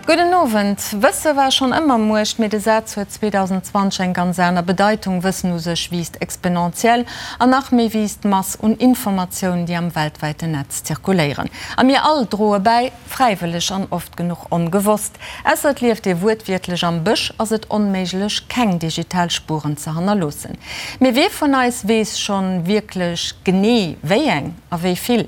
Gudden Owend. Wësse war schonn ëmmer Muecht, mee de Saz huet 2020 eng ganz aner Bedeitung. Wëssen u sech wiisst exponentiell an nach méi wiisst d'Mass un Informatioun, déi am weltwäiten Netz zirkuléieren. A mir all droe bäi, fräiwëlleg an oft genuch ongewosst. Ausser et lieft ee wuertwiertlech am Bësch, ass et onméiglech, keng digital Spueren ze hannerloossen. Mee wie vun eis weess schonn wierklech genee, wéi eng a wéi vill?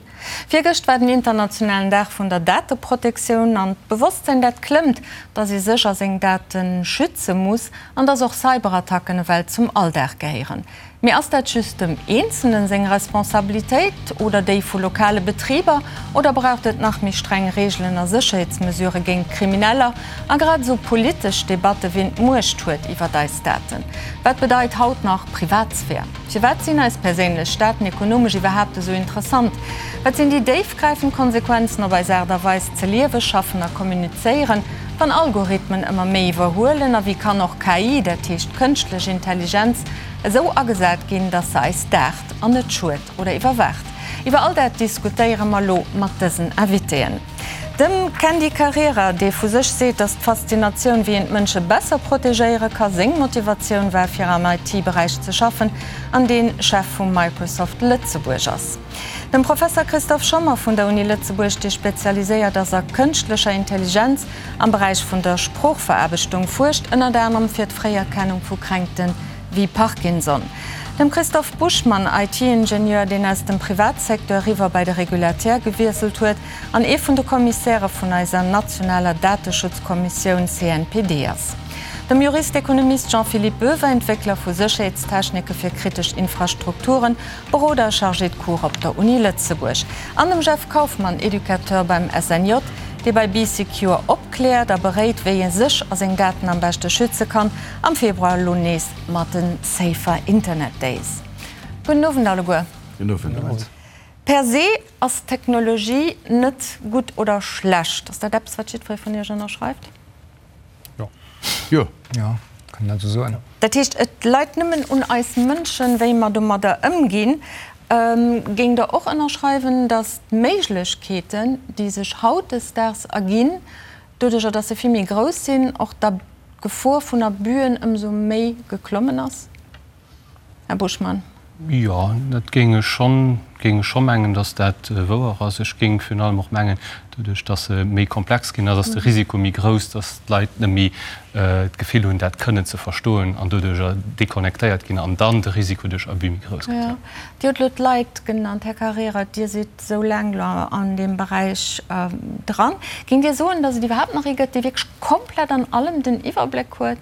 Virgëscht war den internationalen Dag vun der Dateprotektioun an d'Bewosstsinn dat klëmmt, dass ee sech a seng Date schütze muss an dass och Cyberattacken ewell zum Alldag gehéieren. Mee ass dat just dem Eenzelnen seng Responsabilitéit oder déi vu lokale Betriber oder braucht et nach méi streng Reegelen a Sécherheetsmesurë géint Krimineller a grad esou politesch Debatte wien d'Muecht huet iwwert eis Daten? Wat bedeit haut nach Privatsphär? Firwat sinn eis perséinlech Daten ekonomesch iwwerhaapt esou interessant? Wat sinn déi déifgräifend Konsequenzen op eis Aart a Weis ze liewen, schaffen a kommunizéieren, wann Algorithmen ëmmer méi iwwerhuelen? A wéi kann och KI, dat heescht kënschtlech Intelligenz, esou agesat ginn, datt se eis daacht an net schued oder iwwerwaacht? Iwwer all dat diskutéiere mer elo mat dësen Invitéen. Dem Candy Carrera, dee vu sech seet, datt d'Faszinatioun, wéi een d'Mënsche besser protegéiere ka, seng Motivatioun war, fir am IT-Beräich ze schaffen, an dee Chef vu Microsoft Lëtzebuerg ass. Dem Professer Christophe Schommer vun der Uni Lëtzebuerg, dee spezialiséiert ass a kënschtlecher Intelligenz am Beräich vun der Sproochveraarbechtung, fuerscht ënnert anerem fir d'Fréierkennung vu Kränkte wéi Parkinson. Dem Christophe Buschmann, IT-Ingenieur, deen aus dem Privatsecteur eriwwer bei de Regulateur gewiesselt huet, an ee vun de Kommissäre vun eiser nationaler Dateschutzkommissioun CNPD ass. Dem Jurist-Ekonomist Jean-Philippe Boever, Entwéckler vu Sécherheetstechnike fir kritesch Infrastrukturen, Beroder a Chargé de cours op der Uni Lëtzebuerg, an dem Jeff Kauffmann, Educateur beim SNJ, dee bei Bee Secure opkläert a beréit, wéi ee sech a seng Daten am beschte schütze kann, am Februar elo nees mat den Safer Internet Days. Gudden Owend alleguer. Gudden Owend. Per se ass Technologie net gutt oder schlecht. Ass dat eppes, wat jiddweree vun Iech ënnerschreift? Jo. Jo. Jo, kann een dat esou soen. Dat heescht, et leit nëmmen un eis Mënschen, wéi mer domadder ëmginn. Géingt Der och ënnerschreiwen, datt d'Méiglechkeeten, déi sech hautdesdaags erginn, doduerjer datt se vill méi grouss sinn, och d'Gefor vun Abüen ëmsou méi geklommen ass? Här Buschmann. Jo, dat géing ech schonn, géing ech scho mengen, datt dat wouer ass. Ech géing virun allem och mengen, doduerch datt se méi komplex ginn ass, ass de Risiko méi grouss, datt d'Leit net méi d'Gefill hunn, dat kënnen ze verstoen an doduerjer deconnectéiert ginn an dann de Risiko duerch Abus méi grouss gëtt. Jo. Dir hutt elo d'Leit genannt, Här Carrera. Dir sidd esou laang elo an deem Beräich dran. Géingt Dir soen, datt et iwwerhaapt nach ee gëtt, dee wierklech komplett an allem den Iwwerbléck huet?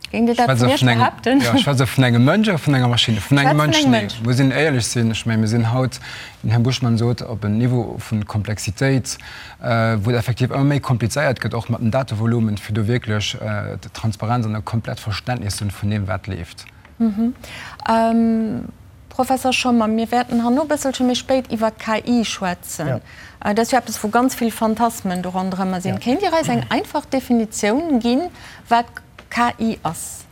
Géingt Dir dat vun Iech behaapten? Jo, ech schwätze vun engem Mënsch oder vun enger Maschinn? Vun engem Mënsch, nee. Muss een éierlech sinn. Ech mengen, mir sinn haut, wéi den Här Buschmann sot, op en Niveau vu Komplexitéit, wou et effektiv ëmmer méi komplizéiert gëtt, och mat den Datevolumen, fir do wierklech Transparenz an e komplett Verständnis ze hunn vun deem, wat leeft. Professor Schommer, mir wäerten herno e bësselche méi spéit iwwer KI schwätzen. Dat ass jo eppes, wou ganz vill Phantasmen do ronderëmmer sinn. Kéint Dir eis eng einfach Definitioun ginn, wat KI ass?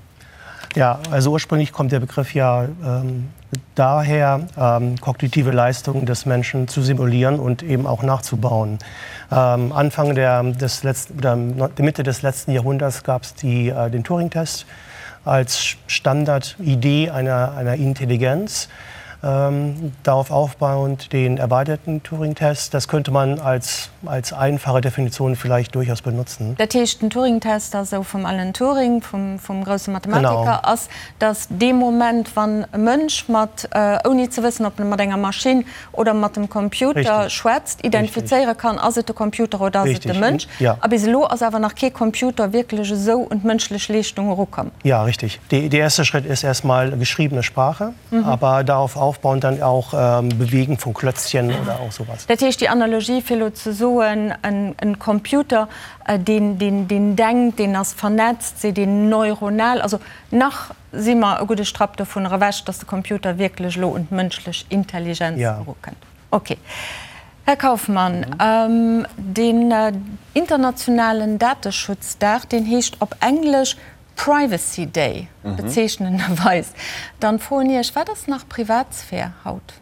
Ja, also ursprünglich kommt der Begriff ja ähm, daher, ähm, kognitive Leistungen des Menschen zu simulieren und eben auch nachzubauen. Ähm, Anfang der, des letzten, oder Mitte des letzten Jahrhunderts gab es äh, den Turing-Test als Standardidee einer, einer Intelligenz. Ähm, darauf aufbauend den erweiterten Turing-Test. Das könnte man als, als einfache Definition vielleicht durchaus benutzen. Dat heescht, den Turing-Test ass esou vum Alan Turing, vum, vum grousse Mathematiker, ass, datt dee Moment, wann e Mënsch mat, ouni ze wëssen, ob e mat enger Maschinn oder mat dem Computer schwätzt, identifizéiere kann, ass et de Computer oder ass et de Mënsch. A bis elo ass awer nach kee Computer wierklech esou un d'mënschlech Leeschtung erukomm. Ja, richtig. Der erste Schritt ist erst mal geschriebene Sprache, aber darauf aufbauend dann auch Bewegen von Klötzchen oder auch sowas. Dat heescht, déi Analogie fir elo ze soen, en Computer, deen denkt, deen ass vernetzt, seet een neuronal, also nach si mer e gudde Strapp dovunner ewech, dass de Computer wierklech elo un d'mënschlech Intelligenz erukënnt. Ok. Här Kauffmann, deen internationalen Dateschutzdag, deen heescht op Englesch Privacy Day, bezeechnenderweis. Dann froen Iech, wat ass nach Privatsphär haut?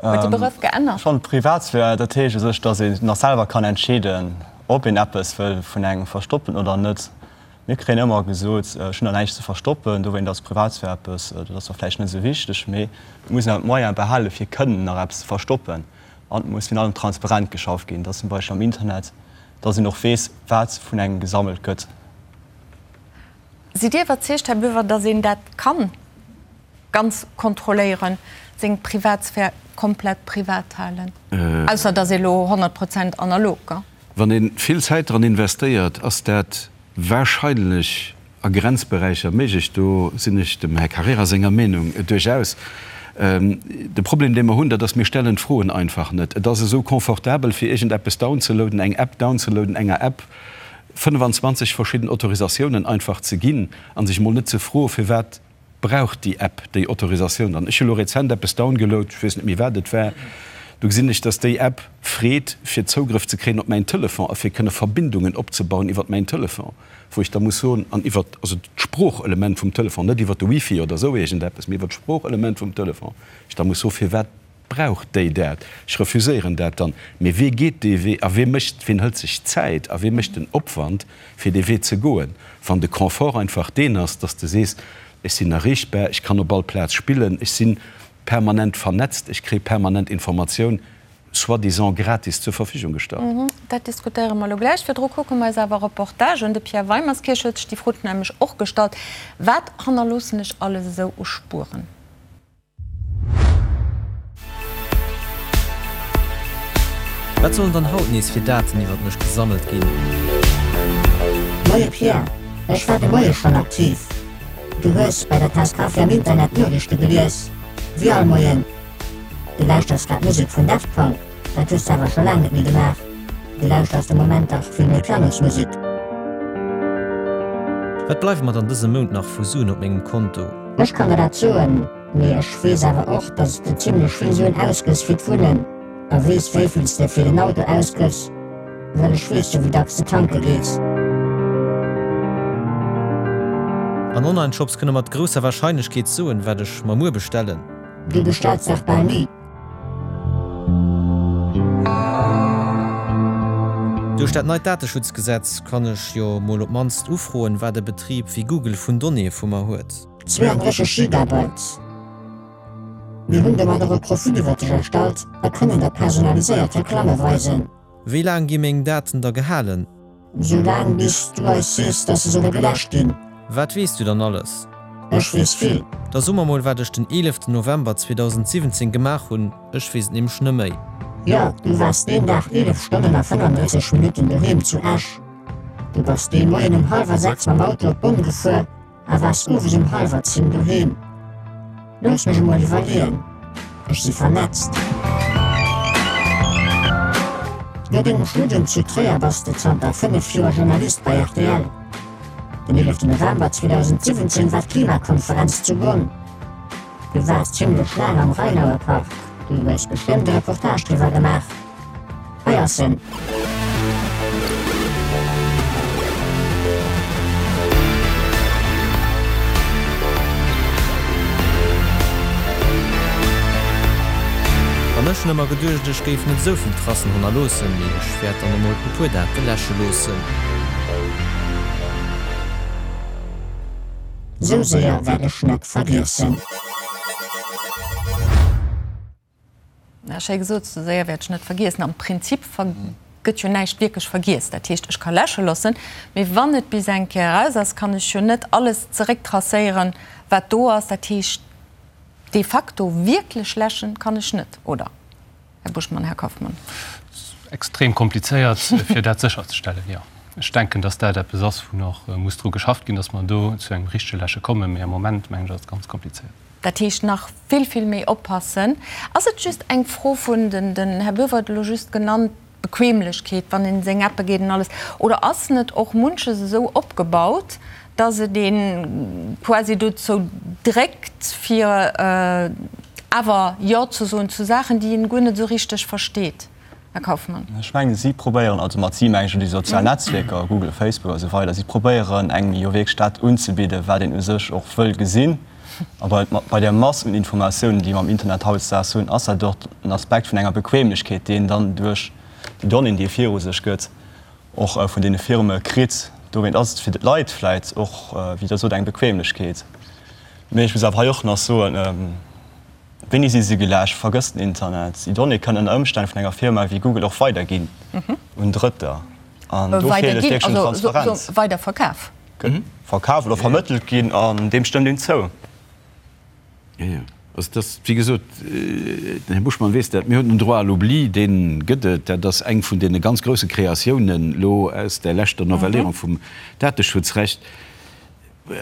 Huet de Begrëff geännert? Schonn, Privatsphär, dat heescht u sech, dass een nach selwer kann entscheeden. ob een eppes wëll vun engem verstoppen oder net. Mir kréien ëmmer gesot, ech hunn der näischt ze verstoppen, dowéint ass Privatsphär eppes, dat ass zwar vläicht net esou wichteg, mee et muss een awer d'Moyene behale fir kënnen nach eppes ze verstoppen. An et muss virun allem transparent geschafft ginn, dass zum Beispill am Internet, dass een och weess, wat vun engem gesammelt gëtt. Sidd Dir iwwerzeegt, Här Boever, dass een dat kann ganz kontrolléieren, seng Privatsphär komplett privat halen, ausser dass ee lo 100 Prozent analog, gell? Wann ee vill Zäit dran investéiert, ass dat wahrscheinlech a Grenzberäicher méiglech. Do sinn ech dem Här Carrera senger Meenung duerchaus. De Problem, dee mer hunn, dat ass, mir stellen d'Froen einfach net. Et ass esou confortabel, fir iergendeppes downzeloaden, eng App downzeloaden, enger App 25 verschidden Autorisatiounen einfach ze ginn a sech emol net ze froen, firwat Brauch déi App déi Autorisatioun dann? Ech hu lo rezent eppes downgeload, ech weess net méi wat et war, do gesinn ech, dass déi App freet fir Zougrëff ze kréien op mäin Telefon a fir kënne Verbindungen opzebauen iwwert mäin Telefon, wou ech da muss soen, an iwwert also d'Sproochelement vum Telefon, net iwwert de Wifi oder esou iergendeppes, mee iwwert d'Sproochelement vum Telefon, ech da muss soen, firwat Brauch déi dat? Ech refuséieren dat dann. Mee wee geet dee Wee a wee mécht, ween hëlt sech d'Zäit a wee mécht den Opwand, fir dee Wee ze goen, wann de Confort einfach deen ass, dass de sees, ech sinn erreechbar, ech kann op all Plaz spillen, ech si permanent vernetzt, ech kréie permanent Informatioun soi-disant gratis zur Verfügung gestallt. Dat diskutéiere mer elo gläich. Virdru kucke mer eis awer e Reportage un. De Pierre Weimerskirch huet sech déi Fro nämlech och gestallt, Wat hannerloossen ech alles esou u Spueren? Wat sollen dann haut nees fir Daten iwwert mech gesammelt ginn? Moie Pierre, ech war de Moie schonn aktiv. Du hues bei der Taass Kaffi am Internet d'Noriichte gelies, wéi all Moien. Du lauschters grad Musek vun Daft Punk, dat hues de awer scho laang net méi gemaach. Du lauschters de Moment dach vill méi Pianosmusek. Wat bleiwe mer dann dëse Mount nach vu Suen op mengem Konto? Ech kann der dat soen. Mee ech weess awer och, dass s de zimlech vill Suen ausgëss fir d'Wunnen a weess wéivill s de fir den Auto ausgëss, well ech weess jo wéi dacks de tanke gees. An Online-Shops kënne mat grousser Warscheinlechkeet soen, wat ech mer muer bestellen. Du bestells dach bal ni. Duerch dat neit Dateschutzgesetz kann ech jo mol op mannst ufroen, wat e Betrib wéi Google vun Donnéeë vu mer huet. 32 Gigabyte. Mir hunn domat och e Profil iwwer dech erstallt a kënnen der personaliséiert Reklamme weisen. Wéi laang gi meng Daten da gehalen? Sou laang bis du eis sees, dass se solle geläscht ginn. Wat weess du dann alles? Ech weess vill. Da so mer mol wat ech den 11 November 2017 gemaach hunn, ech weess et nämlech neméi. Jo, du waars deen Dag 11 Stonnen a 35 Minutten doheem zu Esch. Du bass dee Moien um hallwer 6 mam Auto op Bonn gefuer. A waars owes um hallwer 10 doheem? Looss mech emol iwwerleeën, ech si vernetzt. No dengem Studium zu Tréier bass de zanter 5 Joer Journalist bei rtl. Den 11 November 2017 war d'Klimakonferenz zu Bonn. Du waars zimmlech laang am Rheinauer Park, du hues bestëmmt e Reportage driwwer gemaach. Hei ass en. An ech hunn ëmmer geduecht, ech géif net esou vill Tracen hannerloossen, mee ech wäert dann emol e puer Date läsche loossen. Sou séier wäert ech net vergiessen. Ja, schéi gesot, sou séier wäert ech net vergiessen. Am Prinzip gëtt jo näischt wierklech vergiess. Dat heescht, ech ka läsche loossen, mee wann et bis eng Kéier eraus ass, kann ech jo net alles zerécktracéieren, wat do ass. Dat heescht, de facto wierklech läschen kann ech net, oder, Här Buschmann, Här Kauffmann? Extrem komplizéiert, fir dat sécherzestellen, jo. Ech denken, dass dat eppes ass, wou nach muss dru geschafft ginn, dass mer do zu engem richtege Läsche kommen. Mee am Moment, mengen ech, ass et ganz komplizéiert. Dat heescht, nach vill, vill méi oppassen. Ass et just eng Fro vun, den Här Boever huet elo just genannt, Bequemlechkeet, wann een seng Appe geet an alles, oder ass net och munches esou opgebaut, dass et ee quasi dozou dréckt, fir awer Jo ze soen zu Saachen, déi een guer net esou richteg versteet? Här Kauffmann. Ech mengen, si probéieren, also mat si mengen ech elo déi sozial Netzwierker, Google, Facebook a sou weider, si probéieren engem jo wierklech dat unzebidden, wat een u sech och wëll gesinn. A bei, bei där Mass un Informatiounen, déi mer am Internet hautdesdaags hunn, ass dat och en Aspekt vun enger Bequemlechkeet, deen dann duerch déi Donnéeën, déi e viru sech gëtt, Och vun deene Firme kritt. Dowéint ass et fir d'Leit vläit och, wéi Der sot, eng Bequemlechkeet. Mee ech muss awer hei och nach soen, Wéini si se geläscht? Vergësst den Internet. Déi Donnéeë kënnen ënner Ëmstänn vun enger Firma wéi Google och weiderginn un Drëtter. An do feelt et wierklech un Transparenz. Weiderverkaf. Verkaf oder vermëttelt ginn an deem stëmmt een zou. Jo, jo. Also dat ass, wéi gesot, den Här Buschmann weess dat, mir hunn den Droit à l'oubli, dee gëtt et. Dat ass eng vun deene ganz grouse Kreatiounen elo aus där leschter Novellierung vum Dateschutzrecht.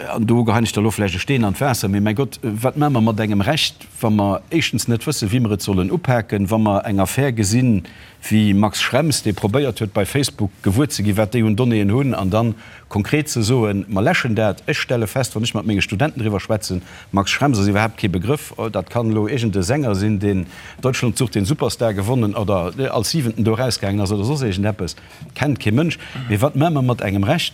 An do geheien ech da elo vläicht e Steen an d'Waasser, mee mäi Gott, wat maache mer mat engem Recht, wa mer éischtens net wëssen, wéi mer et sollen upaken, wa mer eng Affär gesinn, wéi Max Schrems, dee probéiert huet, bei Facebook gewuer ze ginn, wat déi un Donnéeën hunn, an dann konkret ze soen, mer läschen dat. Ech stelle fest, wann ech mat menge Studenten driwwer schwätzen, Max Schrems ass iwwerhaapt kee Begrëff, dat kann elo iergend e Sänger sinn, deen Deutschland sucht den Superstar gewonnen oder als Siwenten do erausgaangen ass oder soss iergendeppes, kennt kee Mënsch. Mee wat maache mer mat engem Recht,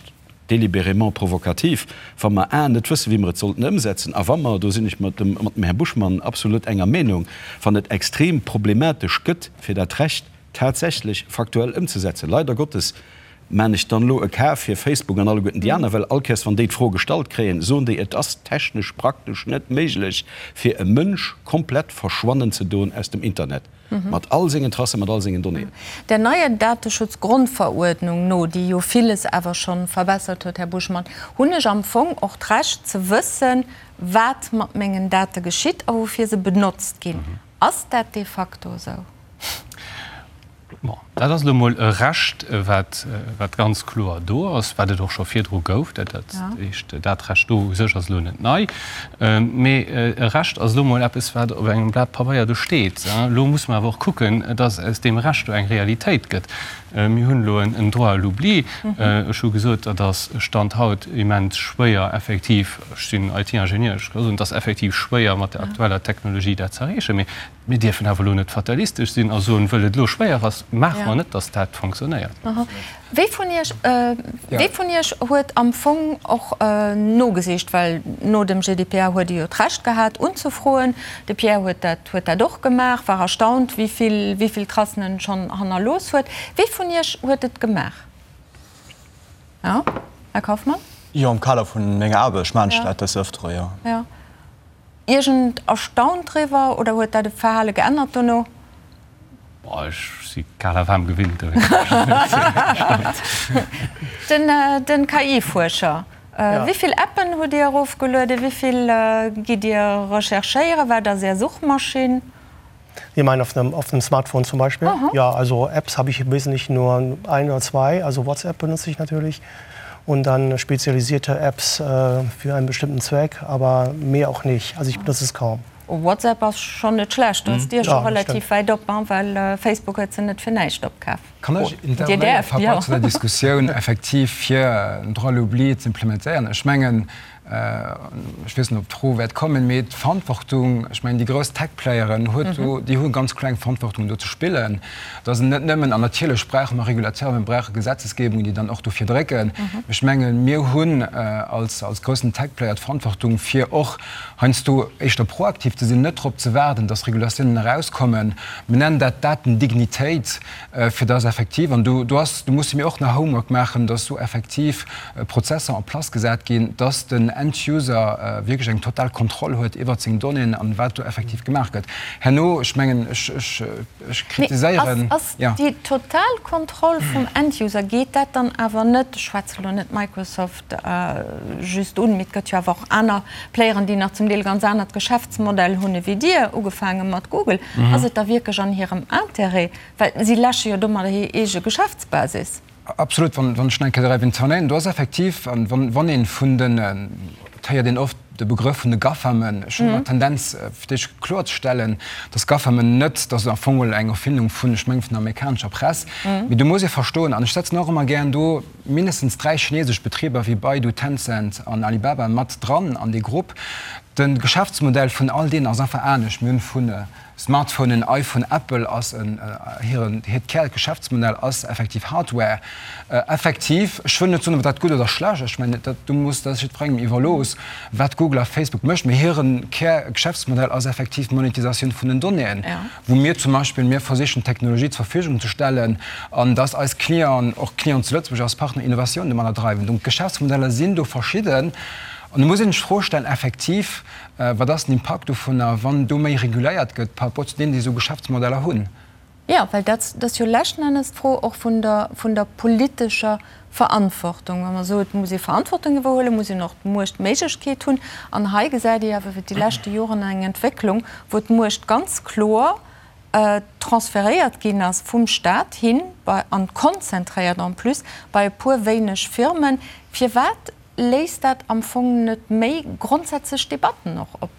délibérément provokativ, wa mer a net wëssen, wéi mer et sollten ëmsetzen, a wa mer, do sinn ech mat dem mat dem Här Buschmann absolut enger Meenung, wann et extrem problematesch gëtt, fir dat Recht tatsächlech faktuell ëmzesetzen. Leider Gottes maan ech dann elo e Cas fir Facebook an alleguerten déi aner, well all Kéiers wann déi d'Fro gestallt kréien, soen déi, et ass technesch praktesch net méiglech, fir e Mënsch komplett verschwannen ze doen aus dem Internet. Mat all sengen Tracen, mat all sengen Donnéeën. Der neier Dateschutzgrondveruerdnung no, déi jo villes awer scho verbessert huet, Här Buschmann, hunn ech am Fong och d'Recht ze wëssen, wat mat mengen Date geschitt a woufir se benotzt ginn. Ass dat de facto esou? Bon, dat ass elo emol e Recht, wat, wat ganz kloer do ass, wat et och scho virdru gouf. Dat, dat heescht, dat Recht do u sech ass elo net nei. Mee e Recht ass elo emol eppes, wat op engem Blat Pabeier do steet. Elo muss mer awer och kucken, dass aus deem Recht do eng Realitéit gëtt. Mir hunn elo en Droit à l'oubli. Ech hu gesot, dat ass Stand haut immens schwéier effektiv, ech sinn IT-Ingenieur, ech ka soen, et ass effektiv schwéier mat der aktueller Technologie dat ze erreechen. Mee Mir dierfen awer elo net fatalistesch sinn a soen, wëll et elo schwéier ass, maache mer net, datt dat fonctionnéiert. Wie vun Iech, wie vun Iech huet am Fong och nogesicht, well no dem GDPR huet e jo d'Recht gehat unzefroen, de Pierre huet dat, huet dat och gemaach, war erstaunt, wéi vill, wéi vill Tracen en schonn hannerlooss huet. Wie vun Iech huet et gemaach? Jo, Här Kauffmann? Jo, am Kader vun menger Aarbecht maachen ech dat des Ëftere, jo. Jo. Iergend erstaunt driwwer oder huet dat e Verhale geännert dono? Boah, ech si kal a waarm gewinnt, dowéinst sinn ech net esou erstaunt. Den KI-Fuerscher, wéi vill Appen hutt Dir erofgelueden? Wéi vill gitt Dir recherchéieren? Wat ass Är Suchmaschinn? Sie meinen auf einem, auf einem Smartphone zum Beispiel? Aha. Ja, also Apps habe ich im Wesentlichen nur ein oder zwei. Also WhatsApp benutze ich natürlich und dann spezialisierte Apps äh, für einen bestimmten Zweck, aber mehr auch nicht. Also ich benutze es kaum. WhatsApp ass schonn net schlecht, do ass d'Dier scho relativ wäit op, well Facebook huet se net fir näischt opkaf. Kann ech intervenéieren par rapport zu der Diskussioun effektiv fir en Droit à l'oubli ze implementéieren? Ech mengen, ech weess net, ob d'Fro wäert kommen, mee d'Verantwortung, ech mengen, déi grouss Tech-Playeren huet do, déi hu ganz kloer eng Verantwortung do ze spillen, dass et net nëmmen, an natierlech brauche mer Regulateuren, mir brauche Gesetzesgebungen, déi dann och dofir drécken, mee ech mengen, mir hunn als, als groussen Tech-Player d'Verantwortung, fir och heiansdo éischter proaktiv ze sinn, net drop ze waarden, dass Regulatiounen erauskommen. Mir nennen dat Datendignitéit, fir dass effektiv, an do, do ass, do musse mir och nach Homework maachen, dass do effektiv Prozesser en place gesat ginn, dass den End-User wierklech eng total Kontroll huet iwwert seng Donnéeën an wat do effektiv gemaach gëtt. Herno, ech mengen, ech, ech, ech kritiséieren. Mee ass, ass déi total Kontroll vum End-User, geet dat dann awer net, ech schwätze lo net Microsoft just un, mee et gëtt jo awer och aner Playeren, déi nach zum Deel ganz anert Geschäftsmodell hunn ewéi Dir, ugefaange mat Google, ass et da wierklech an hirem Intérêt, well si läsche jo domadder hir eege Geschäftsbasis? Absolut, wann ech nach eng Kéier däerf intervenéieren, do ass effektiv, an wann een vun den, et héiert een oft de Begrëff vun de GAFAMen, ech hunn ëmmer d'Tendenz fir d'éischt kloerzestellen, datt GAFAMen net, dat ass am Fong geholl eng Erfindung vun, ech mengen vun der amerikanescher Press, mee do muss ee verstoen, an ech setzen och ëmmer gären do mindestens 3 chinesesch Betriber wéi Baidu, Tencent an Alibaba mat dran an dee Grupp. De Geschäftsmodell vun all deenen ass einfach anescht. Mir hunn vun Smartphonen, iPhone, Apple ass en, hiren, hiert Kärgeschäftsmodell ass effektiv Hardware. Effektiv, ech wëll net soen, ob dat gutt oder schlecht ass, ech mengen, dat do muss, dat ass jiddwerengem iwwerlooss, wat Google a Facebook mécht, mee hire Kärgeschäftsmodell ass effektiv d'Monetisatioun vun den Donnéeën, wou mir zum Beispill, mir versichen d'Technologie zur Verfügung ze stellen an dass eis Clienten, och Clienten zu Lëtzebuerg, eis Partner Innovatioun domadder dreiwen. Donc d'Geschäftsmodeller sinn do verschidden. An do muss een sech d'Fro stellen, effektiv, Wat ass den Impakt dovunner, wann do méi reguléiert gëtt par rapport zu deenen, déi esou Geschäftsmodeller hunn? Jo, well dat ass jo leschten Ennes d'Fro och vun der, vun der politescher Verantwortung. Wa mer soen, et muss ee Verantwortung iwwerhuelen, muss een och d'Muecht, d'Méiglechkeet hunn. An hei gesäit ee awer iwwer déi leschte Joren eng Entwécklung, wou d'Muecht ganz kloer transferéiert ginn ass vum Stat hin bei, an konzentréiert en plus, bei e puer wéineg Firmen. Firwat Léist dat am Fong net méi grondsätzlech Debatten och op?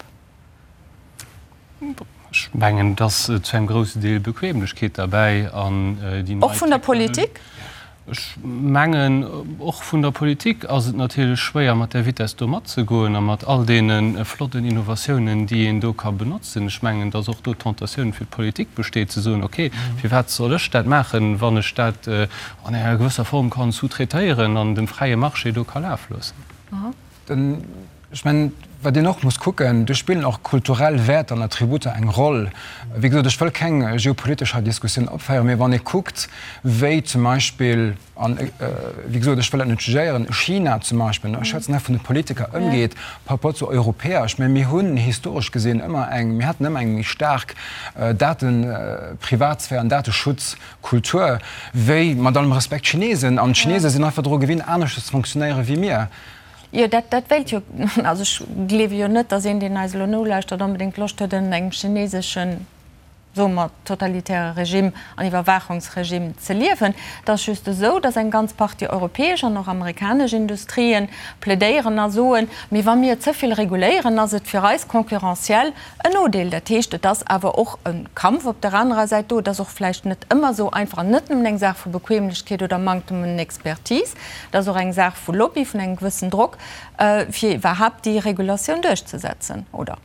Ech mengen, et ass zu engem groussen Deel Bequemlechkeet derbäi an déi nei. Och vun der Politik? Ech mengen, och vun der Politik ass et natierlech schwéier, mat där Vitess do matzegoen a mat all deene flotten Innovatiounen, déi een do ka benotzen. Ech mengen, datt och do d'Tentatioun fir d'Politik besteet, ze soen, okay, firwat soll ech dat maachen, wann ech dat an enger gewësser Form kann sous-traitéieren an dem fräie Marché do ka laf loossen. Ech mengen, wat een och muss kucken, do spillen och kulturell Wäerter an Attributer eng Roll. Wéi gesot, ech wëll keng geopolitesch hei Diskussioun opféieren, mee wann ee kuckt, wéi zum Beispill, an wéi gesot, ech wëll dat net jugéieren, China zum Beispill, ech schwätzen hei vun de Politiker, ëmgeet par rapport zu Europäer, ech mengen, mir hunn historesch gesinn ëmmer eng, mir haten ëmmer eng méi staark Daten, Privatsphär an Dateschutz Kultur wéi, mat allem Respekt, d'Chinesen. An d'Chinese sinn einfach dru gewinnt, aneschters ze funktionéiere wéi mir. Jo, dat, dat wéilt jo, also ech gleewe jo net, datt een, deen eis elo nolauschtert, onbedéngt Loscht huet, ënnert engem chineseschen, soe mer, totalitäre Regime an Iwwerwaachungsregime ze liewen. Et ass just esou, datt eng ganz Partie europäesch an och amerikanesch Industrien plädéieren a soen, Mee wa mir ze vill reguléieren, ass et fir eis concurrentiel En Nodeel, dat heescht, et ass awer och e Kampf op der anerer Säit do. Et ass och vläicht net ëmmer esou einfach an net nëmmen eng Saach vu Bequemlechkeet oder Manktem un Expertise. Et ass och eng Saach vu Lobby, vun engem gewëssen Drock, fir iwwerhaapt déi Regulatioun duerchzesetzen, oder?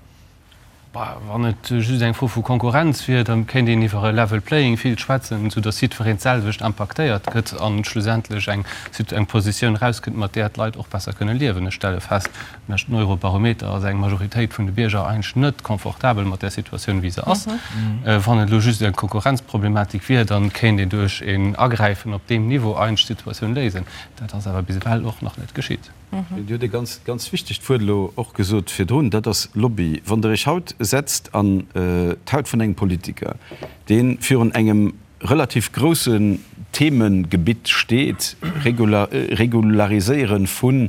Wann et just eng Fro vu Konkurrenz wier, da kéint een iwwer e level playing field schwätzen, soudass jiddwereen d'selwecht impaktéiert gëtt a schlussendlech eng Positioun erauskënnt, mat där d'Leit och besser kënne liewen. Ech stelle fest, Leschten Eurobarometer ass eng Majoritéit vun de Bierger eigentlech net confortabel mat där Situatioun, wéi se ass. Wann et elo just eng Konkurrenzproblematik wier, da kéint een duerch een Agräifen op deem Niveau eigentlech d'Situatioun léisen. Dat ass awer bis ewell och nach net geschitt. Dir hutt e ganz, ganz wichtegt Wuert elo och gesot virdrun, dat ass Lobby. Wann Der Iech haut setzt an d'Haut vun engem Politiker, dee virun engem relativ groussen Themengebitt steet, Regulariséiere vu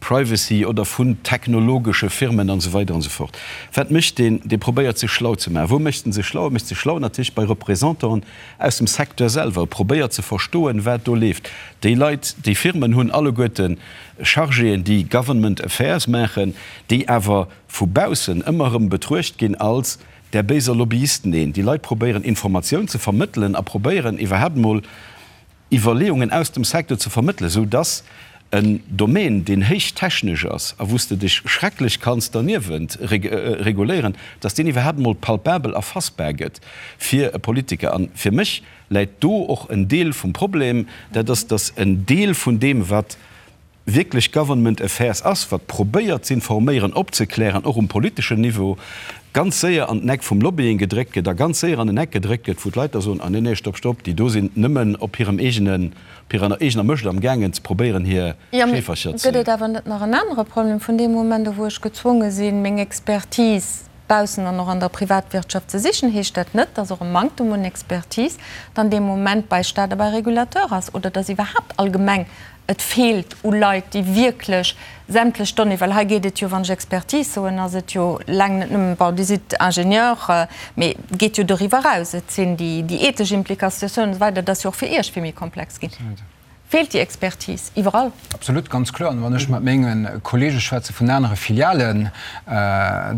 Privacy oder vun technologesche Firmen an esou weider an esou fort. Wat mécht deen? Dee probéiert sech schlau ze maachen. Wou mécht en sech schlau? E mécht sech schlau natierlech bei Représentanten aus dem Secteur selwer. E probéiert ze verstoen, wat do leeft. Déi Leit, déi Firmen hunn alleguerte Chargéen, déi Government Affairs maachen, déi awer vu baussen ëmmer erëm betruecht ginn als där béiser Lobbyisten. Neen, déi Leit probéieren Informatioun ze vermëttelen a probéieren iwwerhaapt emol Iwwerleeungen aus dem Secteur ze vermëttelen, sou dass en Domaine, deen héich technesch ass a wou s de dech schrecklech kanns derniewent reguléieren, dass deen iwwerhaapt emol palpabel erfassbar gëtt fir e Politiker. A fir mech läit do och en Deel vum Problem, dat ass, dass en Deel vun deem, wat wierklech Government Affairs ass, wat probéiert z'informéieren, opzeklären, och um politeschen Niveau, ganz séier an den Eck vum Lobbying gedréckt gëtt a ganz séier an en Eck gedréckt gëtt, wou d'Leit da soen, ah nee, nee, stopp, stopp, déi do sinn nëmmen op hirem eegenen, op hirer eegener Mëscht am gaangen ze probéieren hir Jo, mee Scheefercher ze. gëtt et awer net nach en anere Problem? Vun deem Moment u wou ech gezwonge sinn, meng Expertise baussen an och an der Privatwirtschaft ze sichen, heescht dat net, dass och e Manktem un Expertise dann dee Moment bei Stat a bei Regulateur ass oder dass iwwerhaapt allgemeng Et feelt u Leit, déi wierklech sämtlech Donnéeë, well hei geet et jo, wann ech Expertise soen, ass et jo laang net nëmmen, bon, Dir sidd Ingenieur, mee et geet jo doriwwer eraus, et sinn déi ethesch Implikatiounen an esou weider, dat ass jo och fir Iech vill méi komplex ginn. Feelt déi Expertise iwwerall? Absolut, ganz kloer. An wann ech mat menge Kollege schwätze vun anere Filialen,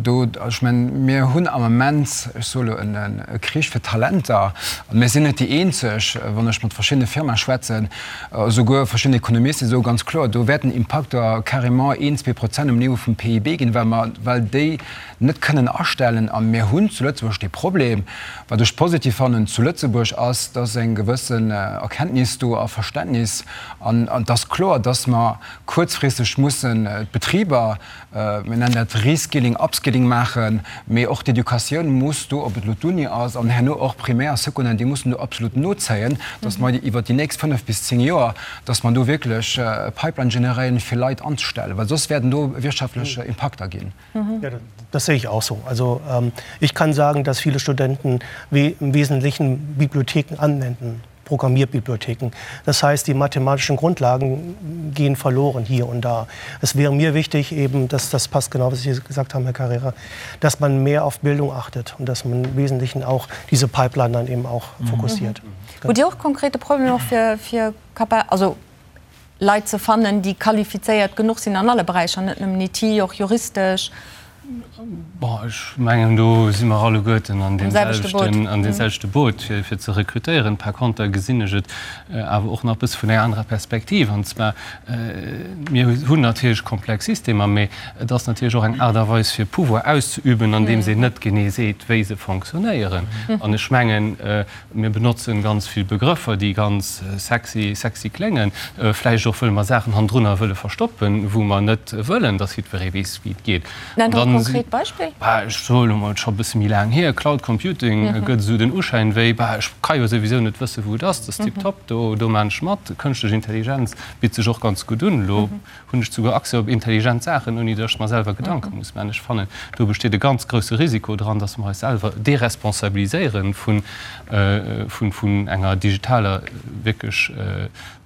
do, ech mengen, mir hunn am Ament, ech soe lo, e Krich fir Talenter. An mir sinn net déi eenzeg. Wann ech mat verschiddene Firmae schwätzen, esouguer verschidden Ekonomisten, déi soe ganz kloer, do wäerten Impakter carrément een, 2% um Niveau vum PIB ginn, well mer, well déi net kënnen astellen. A mir hunn zu Lëtzebuerg dee Problem. Wat ech positiv fannen zu Lëtzebuerg ass, dass eng gewëssen Erkenntnis do a Verständnis, an et ass kloer, dass mer kuerzfristeg mussen d'Betriber, mir nennen dat Reskilling, Upskilling maachen, mee och d'Educatioun muss do, ob et elo d'Uni ass an herno och Primär a Secondaire, déi mussen do absolut nozéien, dass mer iwwert déi nächst 5 bis 10 Joer, dass mer do wierklech e Pipeline generéieren, fir Leit anzestellen, well soss wäerten do wirtschaftlech Impakter ginn. Ja, das sehe ich auch so. Also ähm, ich kann sagen, dass viele Studenten we im Wesentlichen Bibliotheken anwenden. Programmierbibliotheken. Das heißt, die mathematischen Grundlagen gehen verloren hier und da. Es wäre mir wichtig, eben, dass das passt genau, was Sie gesagt haben, Herr Carrera, dass man mehr auf Bildung achtet und dass man im Wesentlichen auch diese Pipeline dann eben auch mhm. fokussiert. Mhm. Hutt Dir och konkrete Problemer fir, fir also Leit ze fannen, déi qualifizéiert genuch sinn an alle Beräicher, net nëmmen IT, och juristesch? Bon, ech mengen, do si mer alleguerten an deem selwechten, an deem selwechte Boot, fir, fir ze rekrutéieren. Par conter gesinn ech et awer och nach e bësse vun enger anerer Perspektiv. An zwar, mir hunn natierlech komplex Systemer, mä et ass natierlech och eng Aart a Weis, fir Pouvoir auszeüben, andeems een net genee seet, wéi se fonctionnéieren. An ech mengen, Mir benotzen ganz vill Begrëffer, déi ganz sexy, sexy kléngen, vläicht och wëll mer Saachen hannendrunner wëlle verstoppen, wou mer net wëllen, dass jiddweree weess, wéi et geet. Nennt e konkret Beispill. Bah, ech soe lo mol, et ass scho e bësse méi laang hier, Cloud Computing gëtt esou den Uschäin wéi, bah, ech ka jo souwisou net wëssen, wou et ass, dat ass tiptop, do, do maan ech mat. Kënschtlech Intelligenz bitt sech och ganz gutt un. Elo hunn ech souguer Accès op intelligent Saachen, ouni datt ech mer selwer Gedanke muss maachen. Ech fannen, do besteet e ganz grousse Risiko dran, datt mer eis selwer deresponsabiliséiere vun, vun enger digitaler wierklech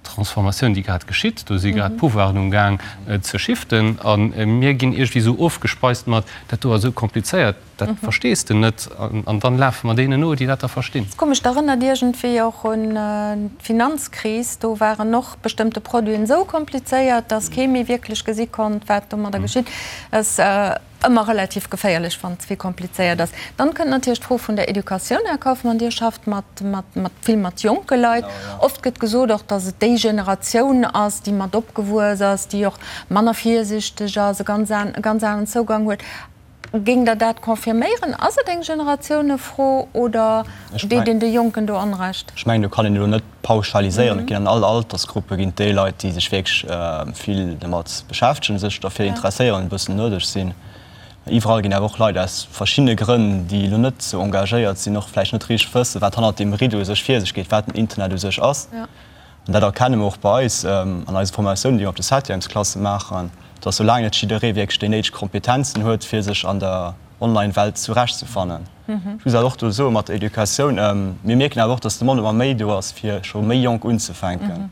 Transformatioun, déi grad geschitt. Do si grad d'Pouvoiren um Gaang ze shiften a mir ginn iergendwéi esou ofgespeist mat, dat do ass esou komplizéiert. Dat verstees de net an dann lafe mer deenen no, déi dat da verstinn. Ass komesch, dat erënnert iergendwéi och un d'Finanzkris. Do waren och bestëmmte Produiten esou komplizéiert, datt kee méi wierklech gesi konnt, wat domadder geschitt. Ass ëmmer relativ geféierlech, wann et ze vill komplizéiert ass. Dann kënnt natierlech d'Fro vun der Educatioun. Här Kauffmann, Dir schafft mat, mat, mat vill mat jonke Leit. Oft gëtt gesot och, datt et déi Generatioun ass, déi mat opgewuess ass, déi och manner virsichteg ass, e ganz e ganz aneren Zougang huet. Géingt Der dat confirméieren? Ass et eng Generatiounefro oder deet een de Jonken do Onrecht? Ech mengen, do kann een elo net pauschaliséieren. Et ginn an all Altersgruppe ginn et déi Leit, déi sech wierklech vill domat beschäftegen, sech derfir interesséieren, e bëssen nërdeg sinn. Iwwerall ginn awer och Leit aus verschiddene Grënn, déi elo net esou engagéiert sinn, och vläicht net richteg wëssen, wat hannert deem Rideau sech vir sech geet, wat den Internet u sech ass. An dat erkenne mer och bei eis an eise Formatiounen, déi mer op de Septièmesklasse maachen, dass soulaang net jidderee wierklech déi néideg Kompetenzen huet, fir sech an der Online-Welt zurechtzefannen. Ech muss awer och do soen, mat der Educatioun, mir mierken awer och, dass d'Demande ëmmer méi do ass, fir scho méi jonk unzefänken.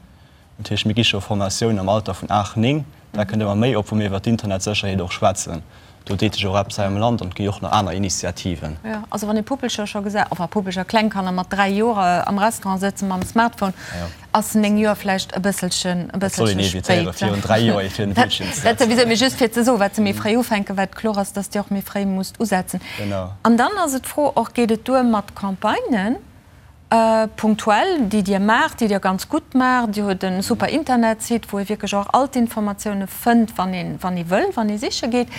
Dat heescht, mir gi scho Formatiounen am Alter vun 8, 9, dat kënnt ëmmer méi op, wou mir iwwer d'Internetsécherheet och schwätzen. Do deet sech och eppes hei am Land an et gi och nach aner Initiativen. Jo, also wann ee Puppelcher scho gesäit, enfin Puppelcher, kleng Kanner mat 3 Joer am Restaurant sëtze mam Smartphone, ass 9 Joer vläicht e bësselchen, e Dat soll een bësselche evitéieren, spéit. virun 3 Joer ee fir den Bildschirm ze Dat souwisou, setzen. mee just fir ze soen, wat se méi fréi ufänken, wat kloer ass, dass Dir och méi fréi musst usetzen. Genau. An dann ass et d'Fro och, geet et duer mat Campagnen? Punktuell, déi Dir maacht, déi Dir ganz gutt maacht. Dir hutt e super Internetsite, wou ee wierklech och all d'Informatioune fënnt, wann een, wann ee wëll, wann ee siche geet.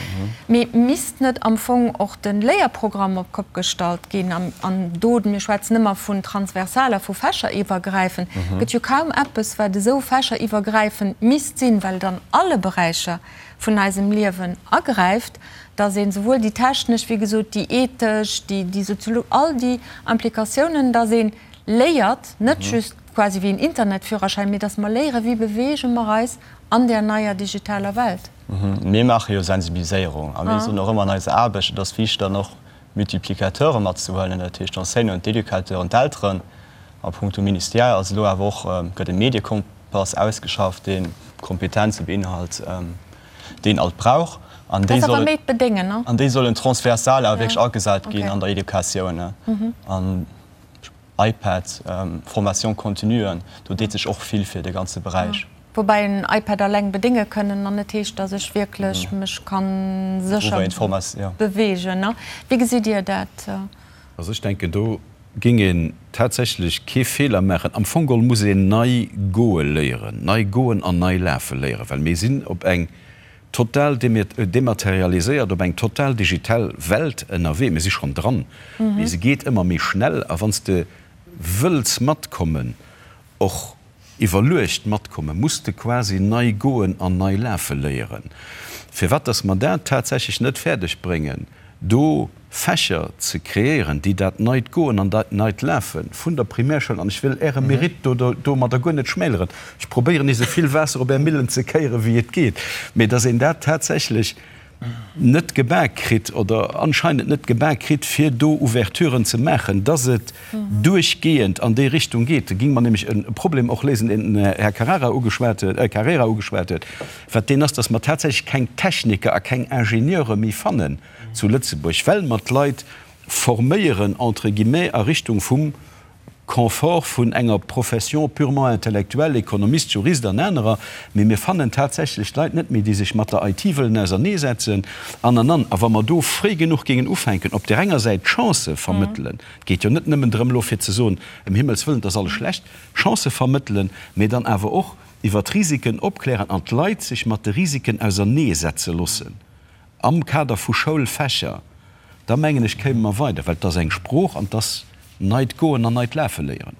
Mee misst net am Fong och de Léierprogramm op d'Kopp gestallt ginn? An, an do, mir schwätzen ëmmer vun transversaler, vu fächeriwwergräifend, gëtt jo kaum eppes, wat esou fächeriwwergräifend misst sinn, well et an alle Beräicher vun eisem Liewen agräift, dass een souwuel déi technesch, wéi gesot, déi ethesch, déi, déi soziolo-, all déi Implikatiounen, dass ee léiert, net just quasi wéi en Internetführerschäin, mee dass mer léieren, wéi beweege mer eis an där neier digitaler Welt. Mir maache jo Sensibiliséierung a mir soen och ëmmer an eiser Aarbecht, et ass wichteg dann och Multiplicateure matzehuelen, dat heescht d'Enseignanten, d'Educateuren, d'Elteren. A punkto Ministère ass elo awer och, gëtt e Mediekompass ausgeschafft, dee Kompetenze beinhalt, déi een alt brauch. An déi sollen, an déi sollen transversal awer wierklech agesat ginn an der Educatioun. An. iPad, Formation continuen, do deet sech och vill fir de ganze Beräich. Woubäi en iPad alleng bedénge kënnen an net heescht, datt ech wierklech mech ka sécher beweegen. Wéi gesitt Dir dat? Also ech denken, do géing een tatsächlech kee Feeler maachen. Am Fong geholl muss een nei goe léieren, nei goen an nei lafe léieren, well mir sinn op eng total dematerialiséiert, op eng total digital Welt ënnerwee. Mir si schonn dran, mee se geet ëmmer méi schnell. A wann s de wëlls matkommen, och iwwerluecht matkommen, muss de quasi nei goen an nei lafe léieren. Firwat dass mer dat tatsächlech net fäerdeg bréngen, do Fächer ze kreéieren, déi dat neit Goen an dat neit Lafe vun der Primärschoul, an ech wëll Äre Mérite do domadder guer net schmäleren, ech probéieren esou vill Waasser op Är Millen ze kéieren, wéi et geet, mä dass een dat tatsächlech net gebak kritt oder anscheinend net gebak kritt, fir do Ouverturen ze maachen, dass et duerchgehend an déi Richtung geet. Da géinge mer nämlech e Problem och léisen, deen den Här Carrara ugeschwat huet, Carrera ugeschwat huet, wat deen ass, dass mer tatsächlech keng Techniker a keng Ingenieure méi fannen zu Lëtzebuerg, well mer d'Leit forméieren, entre guillemets, a Richtung vum Confort vun enger Profession purement intellectuelle, Ekonomist, Jurist an anerer, mee mir fannen tatsächlech d'Leit net méi, déi sech mat der IT wëllen auserneesetzen an, an, an. A wa mer do fréi genuch géingen ufänken, op där enger Säit d'Chancë vermëttelen, et geet jo net nëmmen drëm elo fir ze soen, ëm Himmels wëllen, et ass alles schlecht, Chancë vermëttelen, mee dann awer och iwwer d'Risiken opklären an d'Leit sech mat de Risiken auserneesetze loossen am Kader vu Schoulfächer, da mengen ech, kéime mer weider, well et ass eng Sprooch an et ass neit Goen an neit Lafe léieren.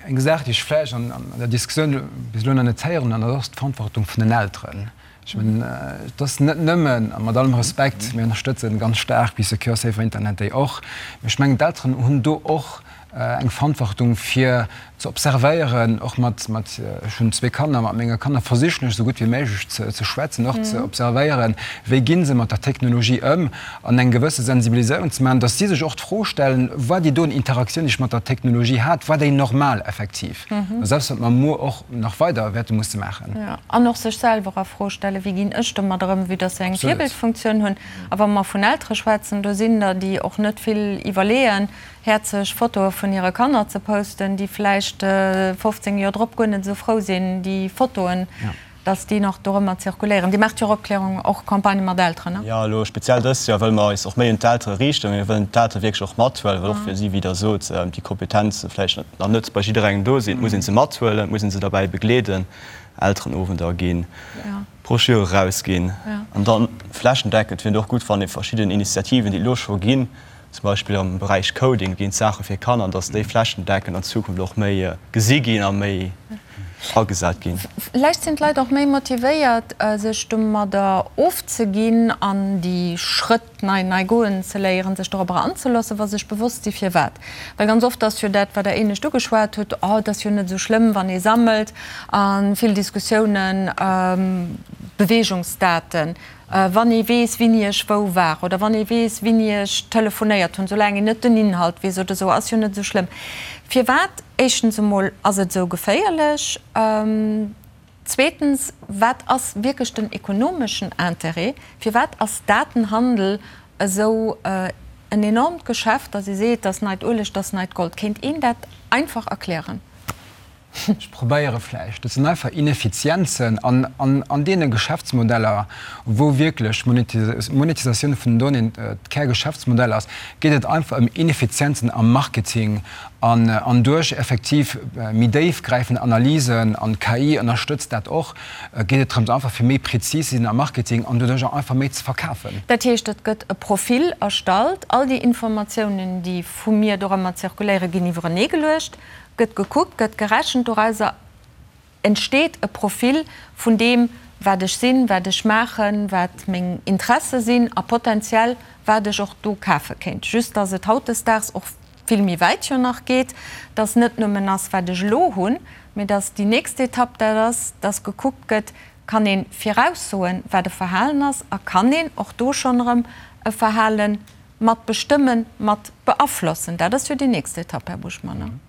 Eng Saach, déi ech vläicht an der Diskussioun bis elo nach net héieren hunn, an dat ass d'Verantwortung vun den Elteren. Ech mengen, et ass net nëmmen, a mat allem Respekt, mir ënnerstëtzen ganz staark Bee Secure, Safer Internet déi och, mee ech mengen, d'Elteren hunn do och eng Verantwortung fir ze observéieren, och mat, mat, ech hunn zwee Kanner, mat menge Kanner versichen ech esou gutt wéi méiglech ze, ze schwätzen, och ze observéieren, wéi gi se mat der Technologie ëm an eng gewësse Sensibiliséierung ze maachen, datt si sech och d'Fro stellen, War déi doen Interaktioun, déi ech mat der Technologie hat, war déi normal effektiv? Dat ass eppes, wat mer muer och nach weider wäerte musse maachen. Jo, an och sech selwer a Fro stellen, Wéi ginn ech domat ëm, vue datt se eng Virbildfunktioun hunn. A wa mer vun Eltere schwätzen, do sinn der, déi och net vill iwwerleeën, häerzeg Fotoe vun hire Kanner ze posten, déi vläicht 15 Joer drop guer net esou frou sinn, déi Fotoen, dass déi nach dorëmmer zirkuléieren. Dir maacht jo och Opklärung, och Campagnë mat Elteren, ne? Jo, elo speziell dëst Joer wëlle mer eis och méi un d'Eltere riichten. Mir wëllen d'Eltere wierklech och mathuelen, well och fir si, wéi Der sot, déi Kompetenze vläicht nach net bei jidderengem do sinn. Et muss ee se mathuelen, et muss ee se derbäi begleeden, Elterenowender ginn, Broschüre erausginn an dann flächendeckend wier et och gutt, wann ee verschidden Initiativen, déi et elo scho ginn, zum Beispill am Beräich Coding ginn d'Saache fir Kanner, dass déi flächendeckend an Zukunft och méi gesi ginn a méi agesat ginn. Vläicht sinn d'Leit och méi motivéiert, sech domadder ofzeginn an déi Schrëtt nei nei goen ze léieren, sech dorobber anzeloossen, wa se sech bewosst si firwat. Well ganz oft ass jo dat, wat Der éinescht ugeschwat hutt, Oh, et ass jo net esou schlëmm, wann ee sammelt, a vill Diskussiounen, Beweegungsdaten, Wann ee weess, wini ech wou war oder wann ee weess, wini ech telefonéiert hunn, soulaang een net den Inhalt weess oder esou, ass jo net esou schlëmm. Firwat, éischtens emol, ass et esou geféierlech? Zweetens, wat ass wierklech den ekonomeschen Intérêt? Firwat ass Datenhandel esou en enormt Geschäft, datt ee seet, dat ass neit Ueleg, dat ass neit Gold? Kéint een dat einfach erklären? Ech probéiere vläicht, dat sinn einfach Ineffizienzen an an deene Geschäftsmodeller, wou wierklech d'Monetisatioun vun den Donnéeën d'Kärgeschäftsmodell ass, geet et einfach ëm Ineffizienzen am Marketing an an duerch effektiv méi déifgräifend Analysen, an d'KI ënnerstëtzt dat och, geet et drëms einfach fir méi prezis ze sinn am Marketing an doduerch och einfach méi ze verkafen. Dat heescht, et gëtt e Profil erstallt, all déi Informatiounen, déi vu mir dorëmmer zirkuléieren, ginn iwwereneegeluecht. Gëtt gekuckt, gëtt gerechent, dorauser entsteet e Profil vun deem, wat ech sinn, wat ech maachen, wat meng Interesse sinn a potenziell wat ech och do kafe kéint. Just dass et hautdesdaags och vill méi wäit jo nach geet, dass net nëmmen ass, wat ech elo hunn, mee dass déi nächst Etapp dat ass, dass gekuckt gëtt, kann ee viraussoen, wat e Verhalen ass a kann een och do schonn erëm e Verhalen Mat bestëmmen, mat beaflossen, dat ass jo déi nächst Etapp, Här Buschmann,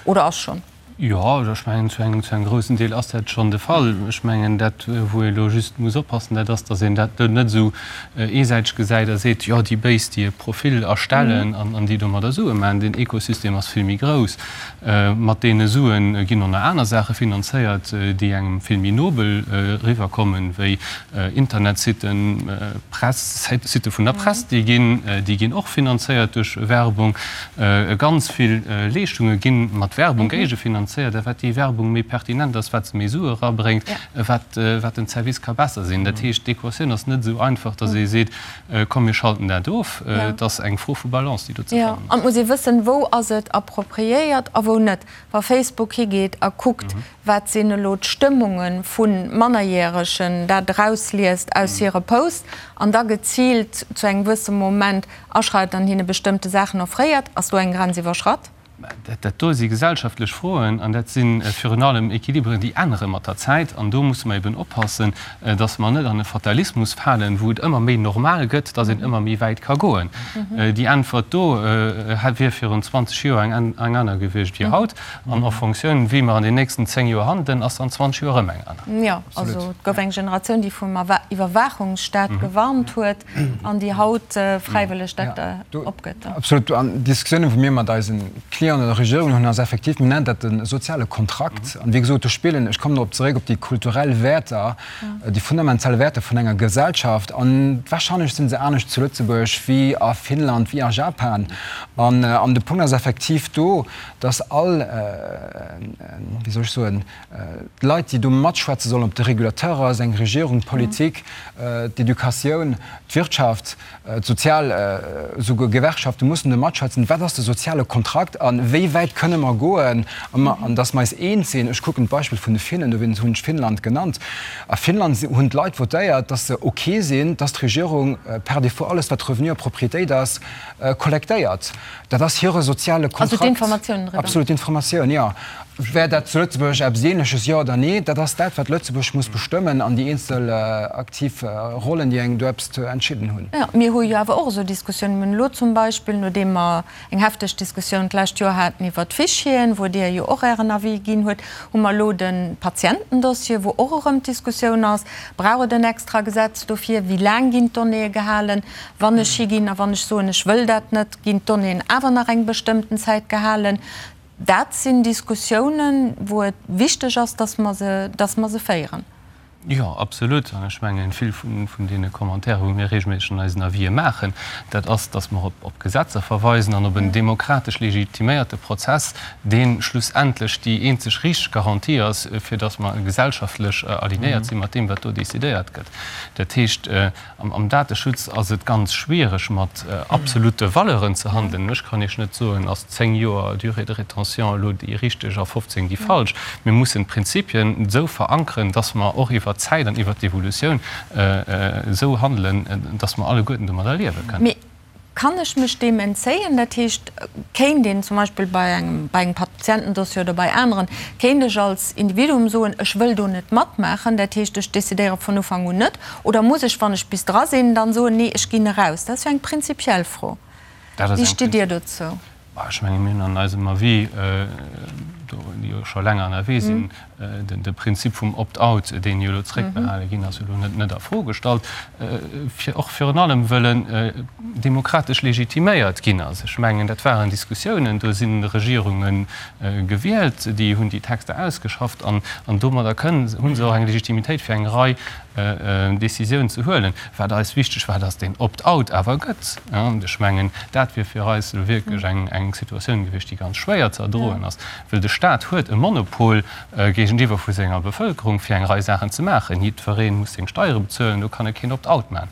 oder ass schonn? Jo, ech mengen, zu engem, zu engem groussen Deel ass dat schonn de Fall. Ech mengen, dat, wou ee elo just muss oppassen, dat ass, datt een dat elo net esou eesäiteg gesäit a seet, jo, déi Béis, déi e Profil erstellen an déi domadder Sue maachen. Den Ekosystem ass vill méi grouss. Mat deene Sue ginn och nach aner Saache finanzéiert, déi engem vill méi nobel eriwwerkommen, wéi Internetsitten, Press, Sitte vun der Press, déi ginn, déi ginn och finanzéiert duerch Werbung. Ganz vill Leeschtunge gi mat Werbung géigefinanzéiert. A wat déi Werbung méi pertinent ass, wat se méi Sue erabréngt, wat den Service ka besser sinn. Dat heescht, d'Equatioun ass net esou einfach, datt ee seet, komm mir schalten dat of. Et ass eng Fro vu Balance, déi do ze fannen ass. An et muss ee wëssen, wou ass et appropriéiert a wou net. Wa Facebook higeet a kuckt, wat sinn elo d'Stëmmunge vu Mannerjäregen, dat erausliest aus hire Posts an da geziilt zu engem gewësse Moment aschreitet an hinne bestëmmte Saachen offréiert, ass do eng Grenz iwwerschratt? Dat do si gesellschaftlech Froen an dat si virun allem Equiliberen, déi ännere mat der Zäit. An do musse mer eben oppassen, dass mer net an e Fatalismus falen, wou et ëmmer méi normal gëtt, dass een ëmmer méi wäit ka goen. Déi Äntwert do wier virun 20 Joer eng aner gewiescht wéi haut. An en Fonctioun, wéi mer an den nächsten 10 Joer handelen, ass an 20 Joer erëm eng aner. Jo, also et gouf eng Generatioun, déi vum Iwwerwaachungsstaat gewarnt huet an déi haut fräiwëlleg dat opgëtt. Absolut. An d'Diskussiounen, wou mir mat eise Clienten oder Regierungen hunn, ass effektiv, mir nennen dat de soziale Kontrakt. An wéi gesot, do spillen, ech kommen dorop zeréck, op déi kulturell Wäerter, déi fundamental Wäerter vun enger Gesellschaft. An warscheinlech si se anescht zu Lëtzebuerg wéi a Finnland, wéi a Japan. An de Punkt ass effektiv do, dass all, wéi soll ech soen, d'Leit, déi do matschwätze sollen, ob de Régulateur ass, eng Regierung, d'Politik, d'Educatioun, d'Wirtschaft, d'sozial, esouguer Gewerkschafte mussen do matschwätzen, wat ass de soziale Kontrakt a wéi wäit kënne mer goen, an dass mer eis eens sinn. Ech kucken d'Beispill vun de Finnen, dowéinst hunn ech Finnland genannt. A Finnland hunn d'Leit votéiert, dass se ok sinn, dass d'Regierung par défaut alles, wat Revenu a Propriétéit ass, kollektéiert. Dat ass hire soziale Kontrakt. Also d'Informatiounen driwwer. Absolut, d'Informatioun, jo. Wär dat zu Lëtzebuerg eppes Ähnleches, jo oder nee? Dat ass dat, wat Lëtzebuerg muss bestëmmen an déi eenzel aktiv Rollen, déi eng do eppes ze entscheeden hunn. Jo, mir hu jo awer och esou Diskussiounen. Mir hunn elo zum Beispill, nodeem mer eng hefteg Diskussioun d'lescht Joer haten iwwert d'Fichieren, wou Dir jo och Ären Avis ginn huet, hu mer elo de Patientendossier, wou och erëm d'Diskussioun ass, Brauch et en extra Gesetz dofir? Wéi laang ginn d'Donnéeë gehalen? Wann ech higinn a wann ech soen, ech wëll dat net, ginn d'Donnéeën awer nach eng bestëmmten Zäit gehalen. Dat sinn Diskussiounen, wou et wichteg ass, dass mer se, dass mer se féieren. Jo, absolut. An ech mengen, vill vun deene Commentairen, wou mir regelméisseg an eisen Avisë maachen, dat ass, dass mer op Gesetzer verweisen an op en demokratesch legitiméierte Prozess, dee schlussendlech déi eenzeg richteg Garantie ass, fir dass mer gesellschaftlech alignéiert si mat deem, wat do decidéiert gëtt. Dat heescht, Am Dateschutz ass et ganz schwiereg mat absolute Valeuren ze handelen. Ech kann Iech net soen, ass 10 Joer Durée de rétention elo déi richteg a 15 déi falsch. Mir mussen d'Prinzipien esou verankeren, dass mer och iwwert d'Zäit an iwwert d'Evolutioun esou handelen, dass mer alleguerten domadder liewe kënnen. Kann ech mech deem entzéien? Dat heescht, kéint een zum Beispill bei engem, bei engem Patientendossier oder bei aneren, kéint ech als Individuum soen, ech wëll do net matmaachen, dat heescht, ech decidéiere vun Ufank un net? Oder muss ech, wann ech bis dra sinn, dann soen, nee, ech ginn eraus? Dat ass jo eng prinzipiell Fro. Wéi stitt Dir dozou? Ech menge mir hunn an eisem Avis, déi jo scho länger ënnerwee sinn, de Prinzip vum Opt-out, deen jo elo zréckbehale ginn ass, elo net a Fro gestallt, fir och virun allem wëll en demokratesch legitiméiert ginn ass. Ech mengen, dat waren Diskussiounen, do si Regierunge gewielt, déi hunn déi Texter ausgeschafft an domadder kënnen, hu se och eng Legitimitéit fir eng Rei Décisiounen ze huelen. Wat eis wichteg war, dass deen Opt-out awer gëtt. Ech mengen, dat wier fir eis elo wierklech eng Situatioun gewiescht, déi ganz schwéier ze erdroen ass. Well de Staat huet e Monopol géigentiwwer vu senger Bevëlkerung, fir eng Rei Saachen ze maachen. Jiddweree muss seng Steiere bezuelen, do kann e keen Opt-out maachen.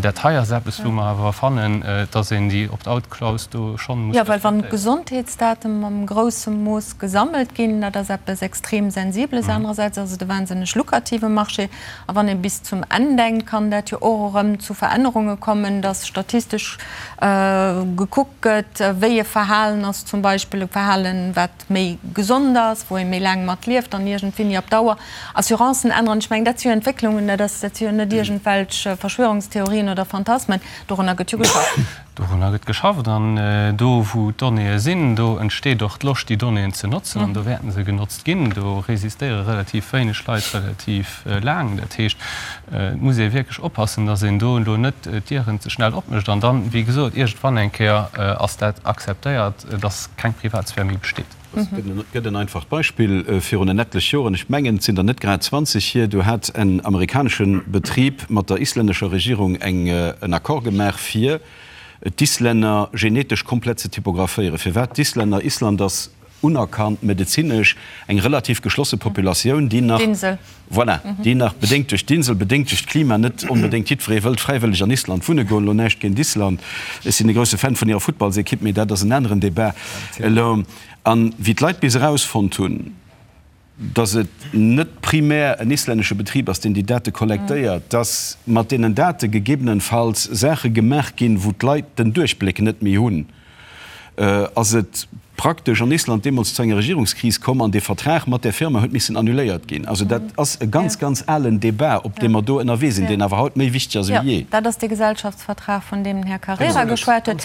Dat hei ass eppes, wou mer awer fannen, dass een déi Opt-out-Klaus do schonn muss respektéieren. Jo, well wann d'Gesondheetsdate mam grousse Mooss gesammelt ginn, dat ass eppes extrem Sensibles. Anerersäits ass et e wahnsinneg lukrative Marché. A wann ee bis zum Enn denkt, kann dat jo och erëm zu Verännerunge kommen, dass statistesch gekuckt gëtt, wéi e Verhalen ass, zum Beispill e Verhalen, wat méi gesond ass, wou ee méi laang mat lieft an iergendwéini op Dauer Assurancen änneren. Ech mengen, dat si jo Entwécklungen, dat ass, dat si jo net iergendwelch Verschwörungstheorien oder Phantasmen, dorunner gëtt jo geschafft. Dorunner gëtt geschafft an do wou d'Donnéeë sinn, do entsteet och d'Loscht déi Donnéeën ze notzen an do wäerten se genotzt ginn. Do resistéiere relativ wéineg Leit relativ laang. Dat heescht, et muss ee wierklech oppassen, datt een do elo net d'Dieren ze schnell opmécht an dann, wéi gesot, iergendwann eng Kéier ass dat akzeptéiert, datt keng Privatsphär méi besteet. Et gëtt en einfacht Beispill, Virun en etlech Joren, ech mengen et sinn der net grad 20 hier, do hat en amerikanesche Betrib mat der islännescher Regierung eng en Accord gemaach, fir d'Islänner genetesch komplett ze typographéieren. Firwat d'Islänner? Island ass unerkannt medezinesch eng relativ geschlosse Populatioun, déi nach, Voilà, déi nach, bedéngt duerch d'Insel, bedéngt duerch d'Klima, net onbedéngt jiddweree wëllt fräiwëlleg an Island wunne goen. Elo näischt géint Island, ech sinn e grousse Fan vun hirer Futtballsekipp, mee dat ass en aneren Debat elo. An wéi d'Leit bis erausfonnt hunn, datt et net primär en islännesche Betrib ass, deen déi Date kollektéiert, datt mat deenen Date gegebenenfalls Saache gemaach ginn, wou d'Leit den Duerchbléck net méi hunn, ass et praktesch an Island deemools zu enger Regierungskris komm an dee Vertrag mat där Firma huet missen annuléiert ginn. Also dat ass e ganz, ganz alen Débat, op deem mer do ënnerwee sinn, deen awer haut méi wichteg ass ewéi jee. Jo, dat ass dee Gesellschaftsvertrag, vun deem den Här Carrera geschwat huet.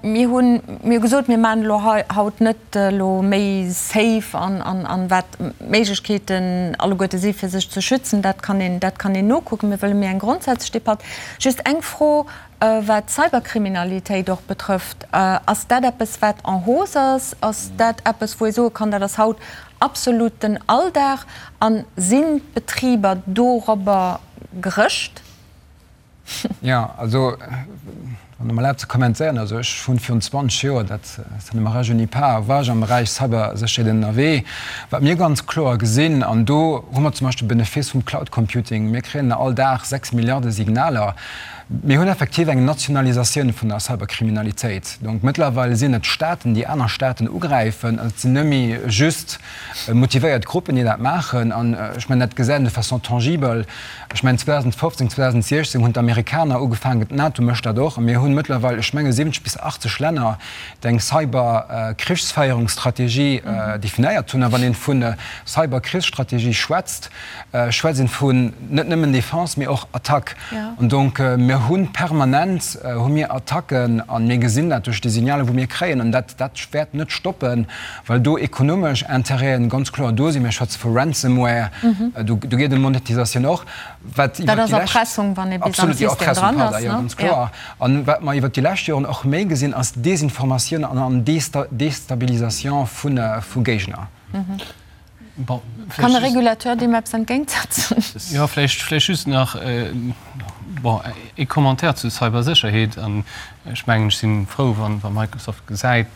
Mir hunn, mir hu gesot, mir maachen elo hei haut net elo méi safe an, an, an wat d'Méiglechkeeten alleguerte si fir sech ze schützen, dat kann een, dat kann een nokucken. Mir wëlle méi eng grondsätzlech Debatt. Just eng Fro, Wat d'Cyberkriminalitéit och betrëfft, ass dat eppes, wat en hausse ass? Ass dat eppes, wou ee soe kann, dat ass haut absolut den Alldag? A sinn d'Betriber dorobber gerëscht? Jo, also wann Der mer erlaabt ze kommentéieren, also ech hunn virun 20 Joer, dat ça ne me rajeunit pas, war ech am Beräich Cybersécherheet ënnerwee. Wat mir ganz kloer gesinn, an do hu mer zum Beispill de Benefice vum Cloud Computing, mir kréien all Dag 6 Milliarde Signaler, Mir hunn effektiv eng Nationalisatioun vun der Cyberkriminalitéit. Donc mëttlerweil sinn et Staaten, déi aner Staaten ugräifen. Et sinn net méi just motivéiert Gruppen, déi dat maachen. An ech mengen, dat gesäit een de façon tangibel. Ech mengen, 2015, 2016 hunn d'Amerikaner ugefaangen, d'NATO mécht dat och. A mir hunn mëttlerweil, ech menge 70 bis 80 Länner, déi eng Cyberkrichsféierungsstrategie definéiert hunn. A wann ee vu Cyberkrichsstrategie schwätzt, schwätzt een vun net nëmmen Defense, mee och Attack. An donc mir hu permanent hu mir Attacken a mir gesinn dat duerch déi Signale wou mir kréien. An dat dat wäert net stoppen, well do ekonomesch Intérêten ganz kloer do sinn. Mir schwätze vu Ransomware, do do geet ëm Monetisatioun och. Wat iwwert déi lescht. Dat ass Erpressung, wann ee bis am System dran ass, ne? Ganz kloer. An wat mer iwwert déi lescht Joren och méi gesinn, ass Desinformatioun an Destabilisation vu Géigner. Bon, Kann e Régulateur deem eppes entgéintsetzen? Jo, vläicht, vläicht just nach, bon, ee Commentaire zu Cybersécherheet. An ech mengen, ech si frou, wa Microsoft gesäit,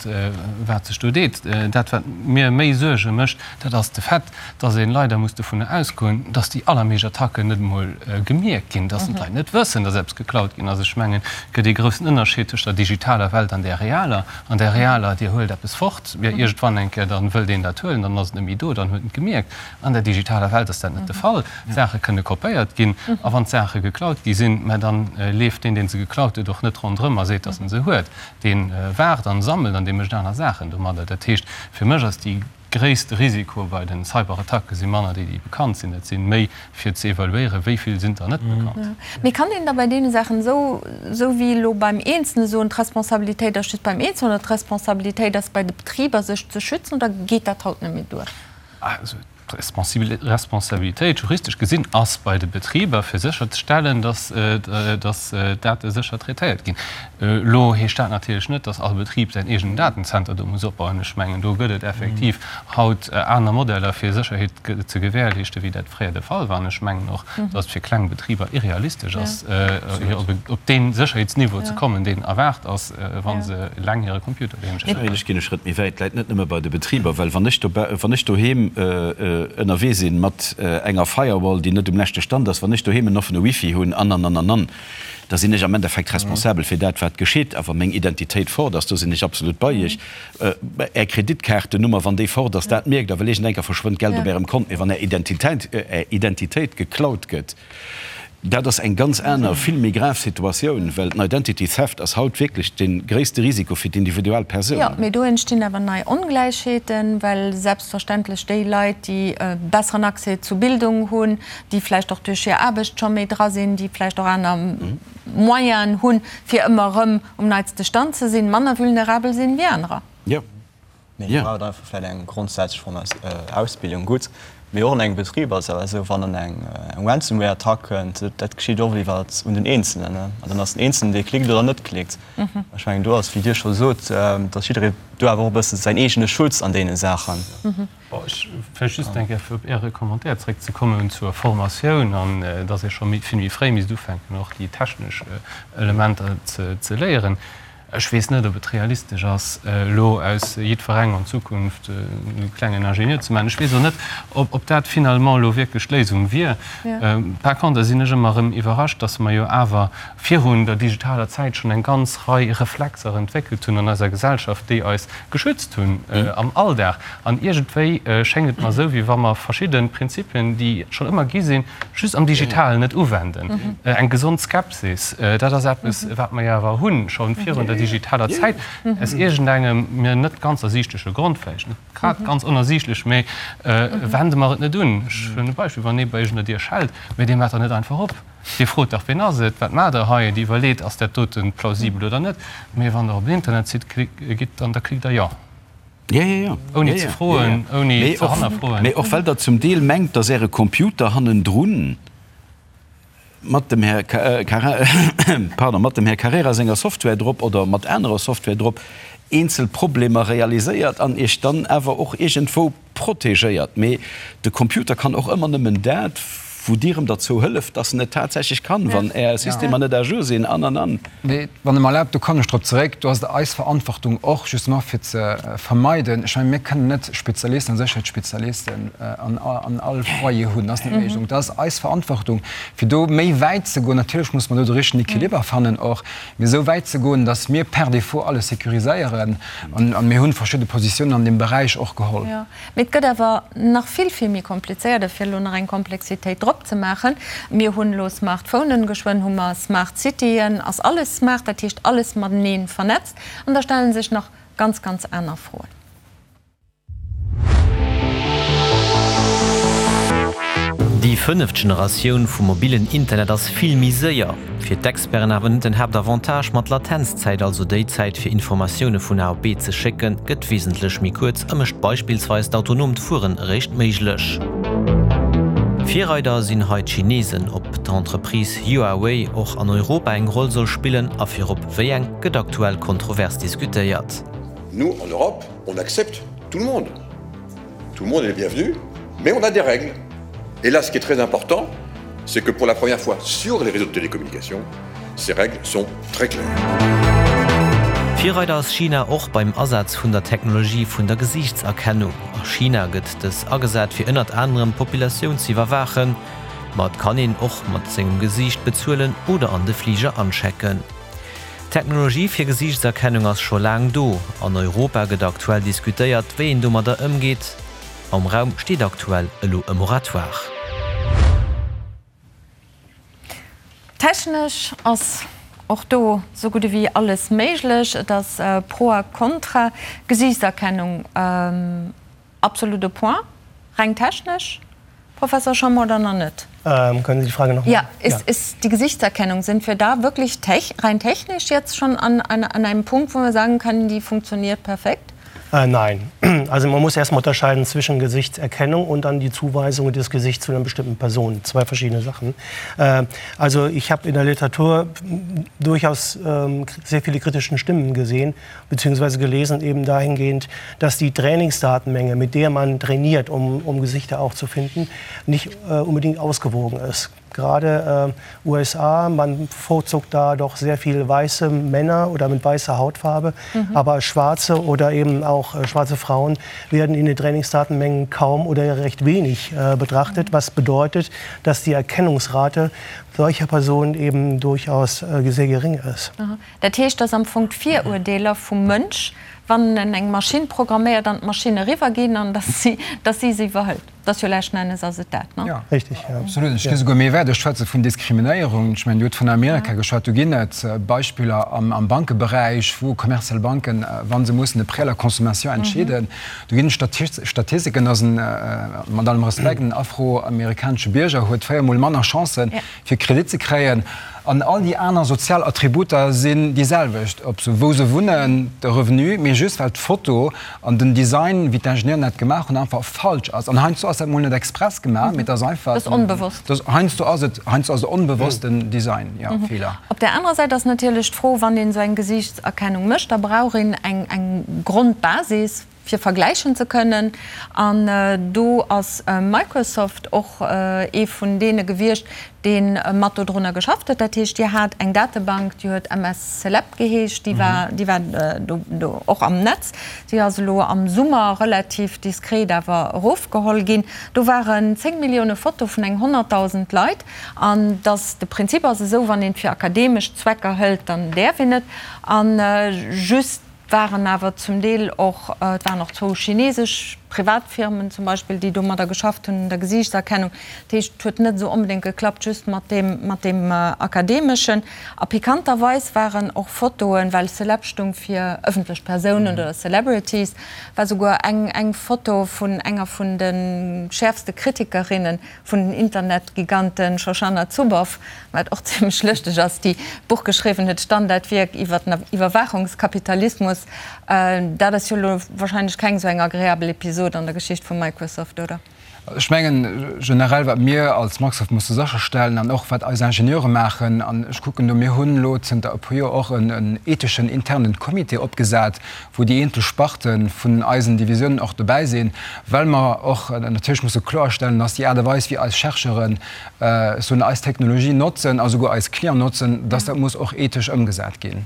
wat sech do deet. Dat, wat mir méi Suerge mécht, dat ass de Fait, dass ee leider muss dovunner ausgoen, dass déi allermeescht Attacken net emol gemierkt ginn, dass d'Leit net wëssen, dass eppes geklaut ginn ass. Ech mengen, et gëtt ee groussen Ënnerscheed tëscht der digitaler Welt an där realer. An där realer, Dir huelt eppes fort, jo iergendwann eng Kéier, dann wëllt een dat huelen, dann ass et net méi do, dann huet en et gemierkt. An der digitaler Welt ass dat net de Fall. D'Saache kënne kopéiert ginn a wann d'Saache geklaut gi sinn, mä dann leeft deen, dee se geklaut huet, och net ronderëm a seet, datt en se huet. Dee waart an sammelt an dee mécht aner Saachen domadder. Dat heescht, fir mech ass déi gréisste Risiko bei den Cyberattacke si manner déi, déi bekannt sinn. Et si méi fir ze evaluéieren, wéi vill sinn der net bekannt. Mee kann een da bei deene Saachen, esou esou wéi elo beim Eenzelne soen, d'Responsabilitéit ass just beim Eenzelnen oder d'Responsabilitéit ass bei de Betriber, sech ze schützen, oder geet dat haut net méi duer? Also d'Responsabilitéit, juristesch gesinn, ass bei de Betriber, fir sécherzestellen, datt d'Date sécher traitéiert ginn. Elo heescht dat natierlech net, datt all Betrib säin eegenen Datenzenter do muss opbauen. Ech mengen, do gëtt et effektiv haut aner Modeller, fir Sécherheet ze gewährleeschten, wéi dat fréier de Fall war. An ech mengen och, datt et fir kleng Betriber irrealistesch ass, op dee Sécherheetsniveau ze kommen, deen erwaart ass, wa se eleng hire Computer doheem stinn. Ech ginn e Schrëtt méi wäit, läit net nëmme bei de Betriber, well wann ech wann ech doheem ënnerwee sinn mat enger Firewall, déi net um leschte Stand ass, wann ech doheem en offene Wifi hunn an, an, an, an, an, da sinn ech am Endeffekt responsabel fir dat, wat geschitt. A wa meng Identitéit fort ass, do sinn ech absolut bei Iech, Är Kreditkaartennummer, wann déi fort ass, dat mierkt Der, well iergendenker verschwënnt Geld op Ärem Kont. Mee wann Är Identitéit, Är Identitéit geklaut gëtt, Dat ass eng ganz aner, vill méi grav Situatioun, well den Identity Theft ass haut wierklech de gréisste Risiko fir d'individuell Persoun. Jo, mee do entstinn awer nei Ongläichheeten, well selbstverständlech déi Leit, déi e besseren Accès zu Bildung hunn, déi vläicht och duerch hir Aarbecht scho méi dra sinn, déi vläicht och aner Moyenen hunn, fir ëmmer erëm um neitste Stand ze sinn, manner vulnerabel sinn wéi anerer. Jo. Mee do brauch et einfach vläicht eng grondsätzlech Ausbildung. Gutt, mee och an engem Betrib ass et awer esou, wann dann eng Ransomware-Attack kënnt, dat geschitt och iwwer un den Eenzelen, an dann ass den Eenzelen, dee klickt oder net klickt. Ech mengen, do ass, wéi Dir scho sot, datt jidderee do awer och e bësse säin eegene Schutz an deene Saachen. Bon, ech vläicht just eng Kéier, fir op Äre Commentaire zréckzekommen zur Formatioun an datt ee scho vill méi fréi misst ufänken, och déi technesch Elementer ze léieren. Ech weess net, ob et realistesch ass, elo aus jiddwerengem an Zukunft e klengen Ingenieur ze maachen. Ech weess och net, ob dat finalement elo wierklech d'Léisung wier. Par contre sinn ech ëmmer erëm iwwerrascht, dass mer jo awer virun der digitaler Zäit schonn eng ganz Rei Reflexer entwéckelt hunn an eiser Gesellschaft, déi eis geschützt hunn am Alldag. An iergendwéi schéngt et mer esou, wéi wa mer verschidde Prinzipien, déi et schonn ëmmer gi sinn, just am Digitalen net uwenden. Eng gesond Skepsis, dat ass eppes, wat mer jo awer hunn, scho virun der digitaler Zäit, aus iergendengem mir net ganz ersiichtleche Grond, vläicht net grad ganz onersiichtlech, mä wende mer et net un. Ech hunn e Beispill, Wann ee bei Iech un der Dier schellt, mä Dir maacht der net einfach op. Dir frot dach, Wien ass et? Wat maacht Der hei? Dir iwwerleet, Ass dat dote plausibel oder net? Mä wann Der op en Internetsite gitt, dann da klickt Der Jo. Ja, ja, ja. Ouni ze froen, ouni ze hannerfroen. Mee och well Der zum Deel mengt, dass Äre Computer hannendrun mat dem Här, pardon, mat dem Här Carrera senger Software drop oder mat anerer Software drop eenzel Problemer realiséiert an Iech dann awer och iergendwou protegéiert. Mee de Computer kann och ëmmer nëmmen dat, wou Dir em derzou hëlleft, dass en et tatsächlech kann, wann Är Systemer net à jour sinn an, an, an. Mee wann Der mer erlaabt, do kommen ech drop zeréck, do ass et eis Verantwortung och justement fir ze vermeiden, ech mengen, mir kënnen net Spezialisten a Sécherheetsspezialisten an all Foyer hunn, dat ass net méiglech. Donc dat ass eis Verantwortung, fir do méi wäit ze goen. Natierlech muss mer do de richtegen Equiliber fannen och, mee esou wäit ze goen, dass mir per défaut alles sécuriséieren. An mir hu verschidde Positiounen an deem Beräich och geholl. Mee et gëtt awer nach vill, vill méi komplizéiert. A fir elo nach eng Komplexitéit drop ze maachen, Mir hunn elo Smartphonen, geschwënn hu mer Smart Cityen, ass alles smart, dat heescht alles matenee vernetzt. An da stelle sech nach ganz, ganz aner Froen. Déi fënneft Generatioun vum mobillen Internet ass vill méi séier. Fir d'Experten awer net den Haaptavantage, ma d'Latenzzäit, also déi Zäit fir Informatioune vun A op B ze schécken, gëtt wesentlech méi kuerz a mécht beispillsweis d'autonoomt Fueren eréischt méiglech. Virreider sinn hei d'Chinesen. Ob d'Entreprise Huawei och an Europa eng Roll soll spillen a virop wéi eng, gëtt aktuell kontrovers diskutéiert. Nous, en Europe, on accepte tout le monde. Tout le monde est le bienvenu, mais on a des règles. Et là, ce qui est très important, c'est que pour la première fois sur les réseaux de télécommunications, ces règles sont très claires. Virreider ass China och beim Asaz vun der Technologie vun der Gesiichtserkennung. A China gëtt dës agesat fir ënnert anerem d'Populatioun ze iwwerwaachen. Ma et kann een och mat sengem Gesiicht bezuelen oder an de Fliger anchecken. D'Technologie fir Gesiichtserkennung ass scho laang do. An Europa gëtt aktuell diskutéiert, wéi een domadder ëmgeet. Am Raum steet aktuell elo e Moratoire. Technesch ass och do sou gutt ewéi alles méiglech. Et ass pro a kontra. Gesiichtserkennung. Absolut au point, reng technesch, Professor Schommer, oder nach net? Können Sie die Frage noch mal? Ja, ist, ist die Gesichtserkennung, sind wir da wirklich tech, rein technisch jetzt schon an, an, an einem Punkt, wo wir sagen können, die funktioniert perfekt? Äh, nein. Also man muss erstmal unterscheiden zwischen Gesichtserkennung und dann die Zuweisung des Gesichts zu einer bestimmten Person. Zwei verschiedene Sachen. Äh, also ich habe in der Literatur durchaus ähm, sehr viele kritischen Stimmen gesehen, beziehungsweise gelesen eben dahingehend, dass die Trainingsdatenmenge, mit der man trainiert, um, um Gesichter auch zu finden, nicht äh, unbedingt ausgewogen ist. Gerade äh, USA, man bevorzugt da doch sehr viel weiße Männer oder mit weißer Hautfarbe, mhm. aber schwarze oder eben auch äh, schwarze Frauen werden in den Trainingsdatenmengen kaum oder recht wenig äh, betrachtet, was bedeutet, dass die Erkennungsrate. solcher Personen eben durchaus sehr gering ist. Dat heescht, dass am Fong d'Virurdeeler vum Mënsch, wann en eng Maschinn programméiert, an d'Maschinn eriwwer ginn an dass si dass si se iwwerhëlt. Dat ass jo leschten Ennes ass et dat, ne? Jo, richtig, jo. Absolut. Ech gi souguer méi wäit, ech schwätze vun Diskriminéierung. Ech mengen, Dir hutt vun Amerika geschwat. Do ginn et Beispiller am Bankeberäich, wou kommerziell Banken, wa se mussen e Prêt à la consommation entscheeden, do ginn et Statistiken, dass en, mat allem Respekt, en afroamerikanesche Bierger huet véiermol manner Chancen, fir Kredit ze kréien, an all déi aner sozial Attributer sinn déi selwecht, ob se wou se wunnen, de Revenu, mee just well d'Foto an den Design, wéi d'Ingenieuren dat gemaach hunn, einfach falsch ass. An heiansdo ass dat mol net express gemaach, mee et ass einfach, Dat ass onbewosst. Dat heiansdo ass et, heiansdo ass et onbewossten Design, jo, Feeler. Op där anerer Säit ass natierlech d'Fro, wann een esou eng Gesiichtserkennung mécht, da brauch een eng eng Grondbasis, fir vergläichen ze kënnen. An do ass Microsoft och ee vun deene gewiescht, dee mat dodrunner geschafft huet. Dat heescht, Dir hat eng Datebank, déi huet MS Celeb geheescht, déi war, déi war do och am Netz. Déi ass elo am Summer relativ diskret awer erofgeholl ginn. Do waren 10 Millioune Foto vun eng 100.000 Leit. An dass de Prinzip ass esou, wann een et fir akademesch Zwecker hëlt, dann däerf een et. A just waren awer zum Deel och, et waren och zwou chinesesch Privatfirmen zum Beispill, déi domadder geschafft hunn un der Gesiichtserkennung. Dat heescht, et huet net esou onbedéngt geklappt just mat deem, mat deem Akademeschen. A pikanterweis waren och Fotoen, well Celeb stung fir ëffentlech Persounen oder Celebrities, war souguer eng, eng Foto vun enger vun de schäerfste Kritikerinne vun den Internetgiganten Shoshana Zuboff, wat och zimlech lëschteg ass, déi d'Buch geschriwwen huet, Standardwierk iwwer den Iwwerwaachungskapitalismus. Dat ass jo elo wahrscheinlech keng esou eng agreabel Episod an der Geschicht vu Microsoft, oder? Ech mengen generell, wat mir als Microsoft musse sécherstellen an och wat eis Ingenieure maachen, an ech kucken do, mir hunn elo zënter e puer Joer och en etheschen internen Comité opgesat, wou déi eenzel Sparte vun eisen Divisiounen och dobäi sinn, well mer och natierlech musse kloerstellen, dass déi Aart a Weis, wéi eis Chercheuren, ech soen, eis Technologie notzen a souguer eis Clienten notzen, dass dat muss och ethesch ëmgesat ginn.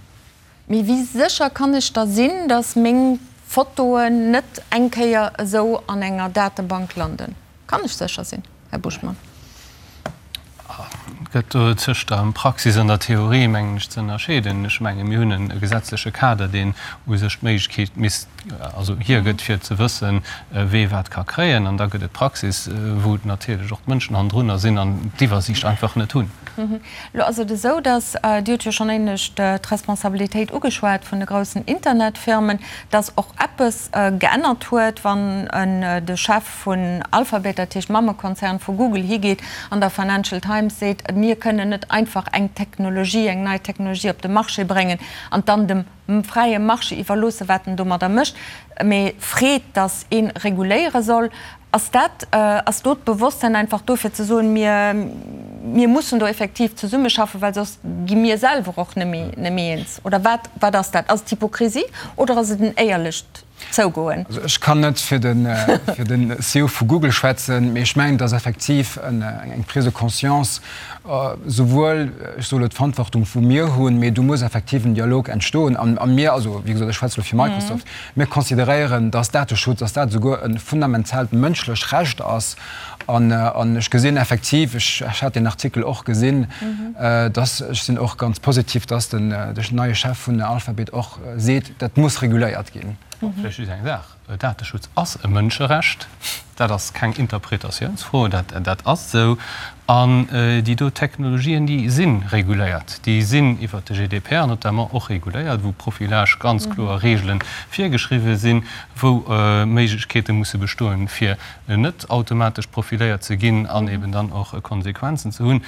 Mee wéi sécher kann ech da sinn, dass meng Fotoen net eng Kéier esou an enger Datebank landen? Kann ech sécher sinn, Här Buschmann? Et gëtt do tëscht der Praxis an der Theorie, mengen ech, ze ënnerscheeden. Ech menge mir hunn e gesetzleche Kader, deen u sech d'Méiglechkeet misst, also hiergëtt, fir ze wëssen, wee wat ka kréien. An da gëtt et d'Praxis, wou natierlech och d'Mënschen hannendrunner sinn an d'Iwwersiicht einfach net hunn. Elo ass et esou, datt, Dir hutt jo schonn éinescht d'Responsabilitéit ugeschwat vun de groussen Internetfirmen, datt och eppes geännert huet, wann de Chef vun Alphabet, dat heescht Mammekonzern vu Google, higeet an der Financial Times seet, mir kënnen net einfach eng Technologie, eng nei Technologie op de Marché bréngen an dann dem fräie Marché iwwerloossen, wat en domadder mécht, mee freet, datt ee reguléiere soll. Ass dat, ass do d'Bewosstsein einfach do fir ze soen, mir, mir mussen do effektiv zesummeschaffen, well soss gi mir selwer och net méi, net méi eens? Oder wat, wat ass dat? Ass et Hypokrisie oder ass et en éierlecht zougoen. Also ech kann net fir de fir den CEO vu Google schwätzen, mee ech mengen, et ass effektiv eng Prise de conscience, souwuel, ech soe lo d'Verantwortung wou mir hunn, mee do muss effektiv en Dialog entstoen. An a mir, also wéi gesot, ech schwätze lo fir Microsoft, mir consideréieren, dass Dateschutz, dass dat esouguer e fundamentaalt mënschlech Recht ass. An an ech gesinn effektiv, ech ech hat deen Artikel och gesinn, dass, ech sinn och ganz positiv, dass den de neie Chef vun Alphabet och seet, Dat muss reguléiert ginn. Vläicht just eng Saach, Dateschutz ass e Mënscherecht. Dat ass keng Interpretatiounsfro, dat ass esou. An déi do Technologien, déi si reguléiert. Déi sinn iwwert de GDPR notamment och reguléiert, wou Profilage ganz kloer Reegele virgeschriwwen sinn, wou Méiglechkeete musse bestoen, fir net automatesch profiléiert ze ginn an eben dann och Konsequenzen ze hunn.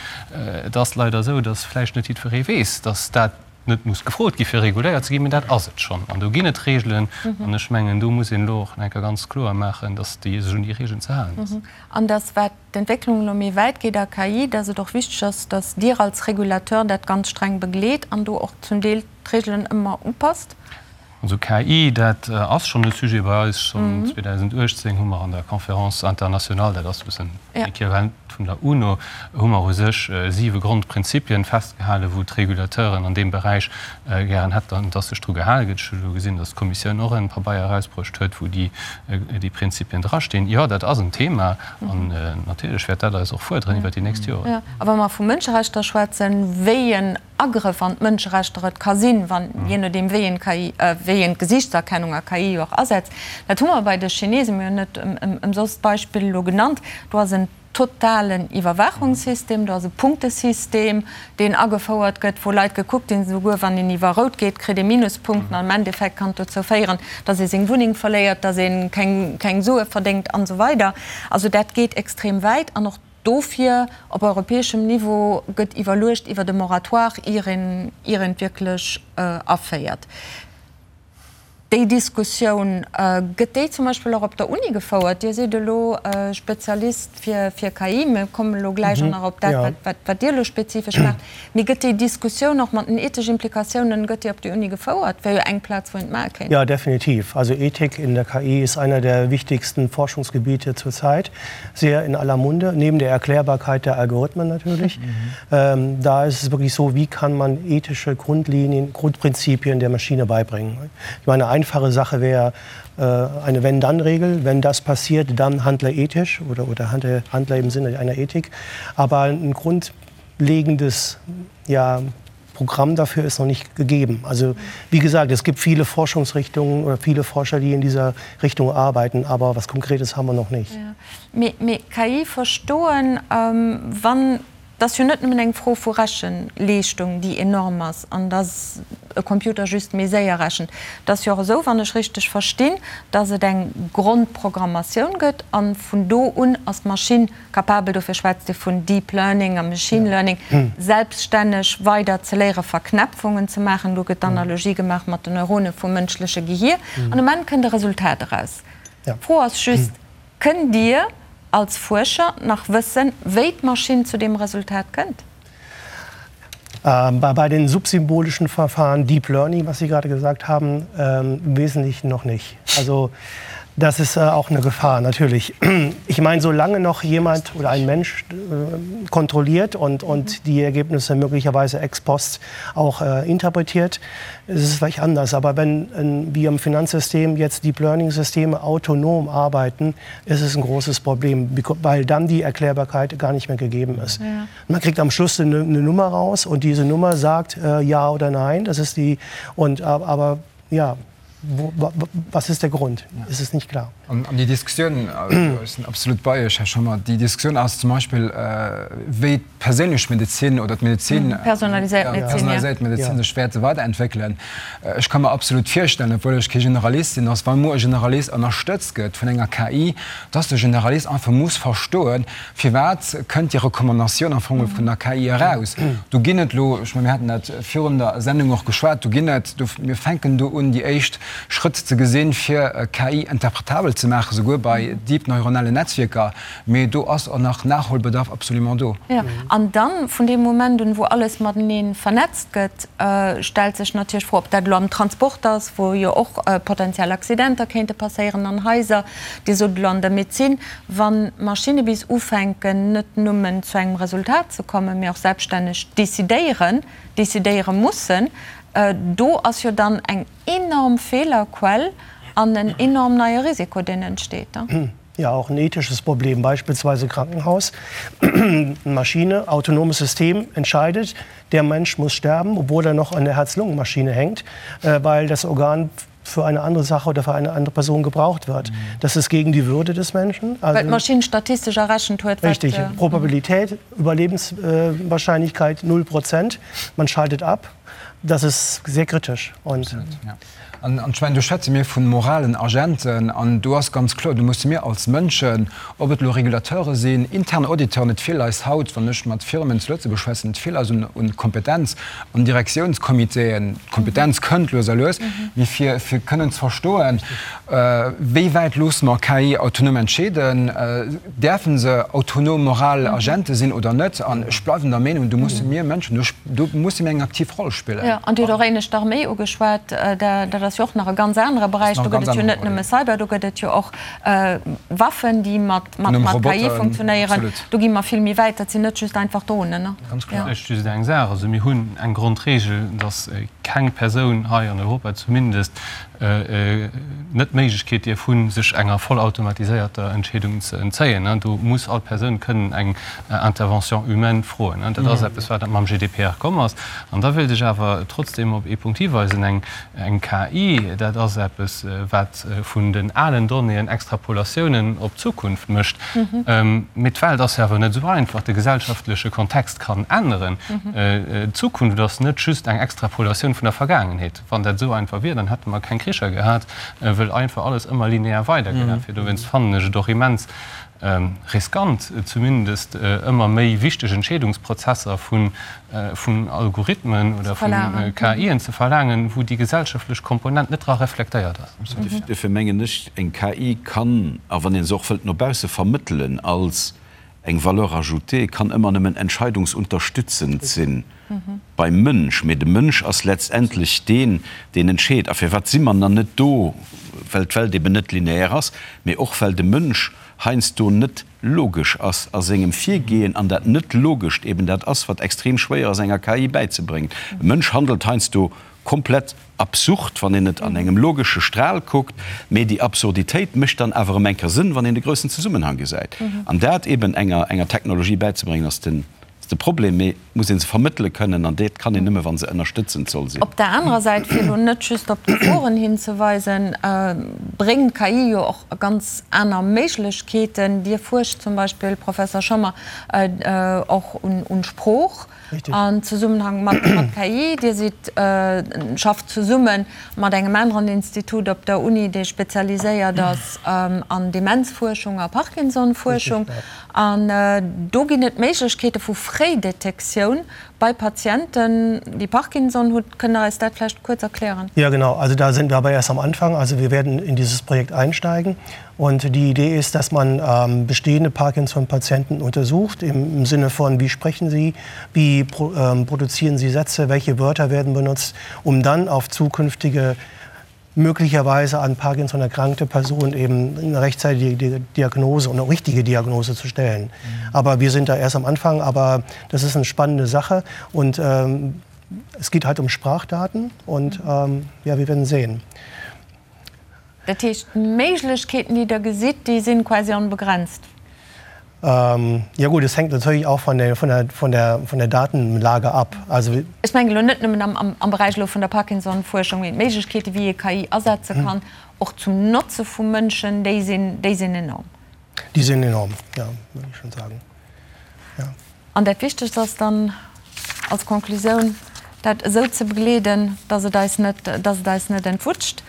Et ass leider esou, dass vläicht net jiddweree weess, dass dat net muss gefrot gi fir reguléiert ze ginn, mee dat ass et schonn an do ginn et Regelen an ech mengen do muss een elo och nach eng Kéier ganz kloer maachen, datt déi sech un déi Regelen ze halen ass. An datt wat d'Entwécklung elo méi wäit geet a KI, datt et och wichteg ass, datt Dir als Regulateur dat ganz streng begleet an do och zum Deel d'Regelen ëmmer upasst? Also KI, dat ass schonn e Sujet bei eis. Schonn 2018 hu mer an der Conférence internationale, dat ass e bëssen Equivalent vun der UNO, hu mer u sech siwe Grondprinzipien festgehalen, wou d'Regulateuren an deem Beräich gären hätten, dass sech dru gehale gëtt. Ech hu elo gesinn, dass d'Kommissioun och en Pabeier erausbruecht huet, wou déi Prinzipien drastinn. Jo, dat ass en Thema an natierlech wäert dat eis och fuerderen iwwert déi nächst Joren. A wa mer vu Mënscherechter schwätzen, wéi en Agrëff an d'Mënscherechter et ka sinn, wann, jee nodeem wéi een d'KI, wéi een d'Gesiichtserkennung a KI jo och asetzt, dat hu mer bei de Chinesen, mir hunn net ëmsoss d'Beispill elo genannt, do ass en totalen Iwwerwaachungssystem, do ass e Punktesystem, deen agefouert gëtt, wou Leit gekuckt ginn, esouguer wann een iwwer rout geet, kritt ee Minuspunkten an am Endeffekt kann et dozou féieren, datt ee seng Wunneng verléiert, datt ee keng, keng Sue verdéngt an esou weider. Also dat geet extrem wäit an och Dofir, op europäeschem Niveau gëtt iwwerluecht iwwert e Moratoire, ier een ier een et wierklech aféiert. Déi Diskussioun, gëtt déi zum Beispill och op der Uni gefouert? Dir sidd elo Spezialist fir fir KI, mir kommen elo gläich och nach op dat, wat wat wat Dir elo spezifesch maacht. Mee gëtt déi Diskussioun och mat den ethesch Implikatiounen, gëtt déi op der Uni gefouert? Wär jo eng Plaz, wou een et maache kéint. Ja, definitiv. Also Ethik in der KI ist einer der wichtigsten Forschungsgebiete zurzeit. sehr in aller Munde, neben der Erklärbarkeit der Algorithmen natürlich. Mhm. Ähm, da ist es wirklich so, wie kann man ethische Grundlinien, Grundprinzipien der Maschine beibringen. Ich meine, eine einfache Sache wäre äh, eine Wenn-Dann-Regel. Wenn das passiert, dann handle ethisch oder, oder handle, handle im Sinne einer Ethik. Aber ein grundlegendes ja, Programm dafür ist noch nicht gegeben. Also wie gesagt, es gibt viele Forschungsrichtungen oder viele Forscher, die in dieser Richtung arbeiten, aber was Konkretes haben wir noch nicht. Ja. Mee, mee KI verstoen, wann, et ass jo net nëmmen eng Fro vu Rechenleeschtung, déi enorm ass an dass e Computer just méi séier rechent. Et ass jo och esou, wann ech richteg verstinn, dass et eng Grondprogrammatioun gëtt a vun do un ass d'Maschinn Capabel, dofir schwätzt ee vun Deep Learning a Machine Learning, selbststänneg weider ze léieren, Verknäpfungen ze maachen. Do gëtt d'Analogie gemaach mat den Neurone vum mënschleche Gehier. An um Enn kënnt e Resultat eraus. D'Fro ass just, Kënnt Dir als Fuerscher nach wëssen, wéi d'Maschinn zu deem Resultat kënnt? Bei den subsymbolischen Verfahren, Deep Learning, was Sie gerade gesagt haben, im Wesentlichen noch nicht. Also das ist auch eine Gefahr natürlich. Ich meine, solange noch jemand oder ein Mensch kontrolliert und, und die Ergebnisse möglicherweise ex post auch interpretiert, ist es vielleicht anders. Aber wenn wir im Finanzsystem jetzt Deep Learning-Systeme autonom arbeiten, ist es ein großes Problem, weil dann die Erklärbarkeit gar nicht mehr gegeben ist. Ja. Man kriegt am Schluss eine, eine Nummer raus und diese Nummer sagt äh, ja oder nein. Das ist die und aber ja, wo, was ist der Grund? Ja. Es ist nicht klar. An, an déi Diskussioun ech sinn absolut bei Iech, Här Schommer, déi Diskussioun ass zum Beispill, wéi d'perséinlech Medezin oder d'Medezin, Personaliséiert Medezin, ja. personaliséiert Medezin sech wäerte weiderentwéckelen. Ech ka mer absolut virstellen, obwuel ech kee Generalist sinn, dass wa muer e Generalist ënnerstëtzt gëtt vun enger KI, dass de Generalist einfach muss verstoen, Firwat kënnt déi Recommandatioun am Fong vun der KI eraus? Do ginn et elo, ech mengen, mir haten dat virun der Sendung och geschwat, do ginn et, do, mir fänken do un, déi éischt Schrëtt ze gesinn, fir KI interpretabel ze maachen, souguer bei deep neuronalen Netzwierker. Mee do ass och nach Nachholbedarf absolument do. Jo, an dann, vun deem Moment un, wou alles matenee vernetzt gëtt, stellt sech natierlech d'Fro, ob dat elo am Transport ass, wou jo och potenziell Accidenter kéinte passéieren, an Haiser, Dir sot elo an der Medezin, Wann d'Maschinne bis ufänken, net nëmmen zu engem Resultat ze kommen, mee och selbststänneg decidéieren, decidéiere mussen, do ass jo dann eng enorm Feelerquell an en enorm neie Risiko, deen entsteet. Ja, auch ein ethisches Problem, beispielsweise Krankenhaus. Maschine, autonomes System entscheidet, der Mensch muss sterben, obwohl er noch an der Herz-Lungen-Maschine hängt, weil das Organ für eine andere Sache oder für eine andere Person gebraucht wird. Das ist gegen die Würde des Menschen. Also, Weil d'Maschinn statistesch errechent huet, wat. Richtig, Probabilität, Überlebenswahrscheinlichkeit 0 Prozent. Man schaltet ab. Das ist sehr kritisch. Und Absolut, ja. An, an ech mengen, do schwätze mir vu moralen Agenten an do ass ganz kloer, do musse mir als Mënschen, ob et elo Regulateure sinn, intern Auditeuren, et feelt eis haut, wann ech mat Firmen zu Lëtzebuerg schwätzen, et feelt eis un, un Kompetenz an Direktiounscomitéen. D'Kompetenz kënnt lues a lues, mee fir, fir kënnen ze verstoen, wéi wäit loosse mer KI autonom entscheeden, däerfe se autonom moral Agente sinn oder net? An ech bleiwen der Meenung, do musse mir Mënschen, do, do musse mir eng aktiv Roll spillen. Jo, an Dir hutt och éinescht d'Arméi ugeschwat, dat ass. ass jo och nach e ganz anere Beräich. Do gëtt et jo net nëmme Cyber, do gëtt et jo och Waffen, déi mat KI funktionéieren. Do gi mer vill méi wäit. Dat sinn net just einfach Dronen, ne? Ganz kloer. Vläicht just eng Saach, Also mir hunn eng Grondregel, dass keng Persoun hei an Europa zumindest net d'Méiglechkeet dierf hunn, sech enger vollautomatiséierter Entscheedung ze entzéien. Do muss all Persoun kënnen eng Intervention humaine froen. Dat ass eppes, wat mam GDPR komm ass. An da wéilt ech awer trotzdeem op ee Punkt hiweisen, Eng KI, dat ass eppes, wat vun den alen Donnéeën Extrapolatiounen op d'Zukunft mécht. Mee d'Welt ass jo awer net esou einfach. De gesellschaftleche Kontext kann änneren. D'Zukunft ass net just eng Extrapolatioun vun der Vergaangenheet. Wann dat esou einfach wier, dann hätte mer keng Kricher gehat, wëll einfach alles ëmmer linear weidergelaf wier. Dowéinst fannen ech et och immens riskant, zumindest ëmmer méi wichteg Entscheedungsprozesser vun Algorithmen oder vu KIen ze verlaangen, wou déi gesellschaftlech Komponent net dra reflektéiert ass. Duerfir mengen ech, eng KI kann, a wann ee se och wëllt no bausse vermëttelen als Eng Valeur ajoutée kann ëmmer nëmmen entscheidungsunterstützend sinn beim Mënsch, mee de Mënsch ass letztendlech deen, deen entscheet. A firwat si mer nach net do? Well d'Welt eben net lineaire ass, mee och well de Mënsch heiansdo net logesch ass a sengem Virgehen an dat Net-Logescht eben dat ass, wat extrem schwéier ass enger KI bäizebréngen. E Mënsch handelt heiansdo komplett absurd, wann een et an engem logesche Stral kuckt, mee déi Absurditéit mécht dann awer erëm eng Kéier Sënn, wann een de groussen Zesummenhang gesäit. An dat eben enger enger Technologie bäizebréngen, ass den ass de Problem, mee et muss ee se vermëttele kënnen, an dat kann een nëmme, wa se ënnerstëtzend soll sinn. Op der anerer Säit, fir elo net just op d'Geforen hinzeweisen, bréngt d'KI jo och ganz aner Méiglechkeeten. Dir fuerscht zum Beispill, Professor Schommer, och un Sprooch. An Zesummenhang mat KI. Dir sidd, schafft zesumme mat engem aneren Institut op der Uni, dee spezialiséiert ass an Demenzfuerschung a Parkinsonfuerschung. An do ginn et Méiglechkeete vu Fréidetektioun bei Patienten, déi Parkinson hunn. Kënnt Der eis dat vläicht kuerz erklären? Ja, genau. Also da sind wir aber erst am Anfang. Also wir werden in dieses Projekt einsteigen. Und die Idee ist, dass man ähm, bestehende Parkinson-Patienten untersucht, im, im Sinne von, wie sprechen sie, wie pro, ähm, produzieren sie Sätze, welche Wörter werden benutzt, um dann auf zukünftige möglicherweise an Parkinson erkrankte Personen eben eine rechtzeitige Diagnose und eine richtige Diagnose zu stellen. Mhm. Aber wir sind da erst am Anfang, aber das ist eine spannende Sache und ähm, es geht halt um Sprachdaten und ähm, ja, wir werden sehen. Dat heescht, d'Méiglechkeeten, déi Der gesitt, déi si quasi onbegrenzt? Ja gut, es hängt natürlich auch von der, von der, von der, von der Datenlage ab. Also. Ech mengen elo net nëmmen am, am Beräich elo vun der Parkinson-Fuerschung, mee d'Méiglechkeeten, wéi ee KI asetze kann, och zum Notze vu Mënschen, déi sinn, déi sinn enorm. Déi sinn enorm, ja, würde ich schon sagen. Ja. An dat Wichtegst ass dann als Conclusioun, dat esou ze begleeden, dass et eis net, dass et eis net entwutscht.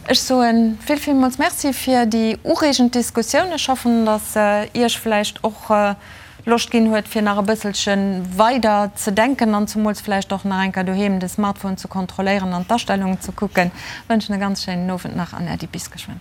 Ech soe vill, villmools Merci fir déi ureegend Diskussioun. Ech hoffen, dass se Iech vläicht och Loscht ginn huet, fir nach e bësselche weider ze denken an zumools vläicht och nach eng Kéier doheem de Smartphone ze kontrolléieren an d'Astellungen ze kucken. Wënschen e ganz schéinen Owend nach an Äddi bis geschwënn.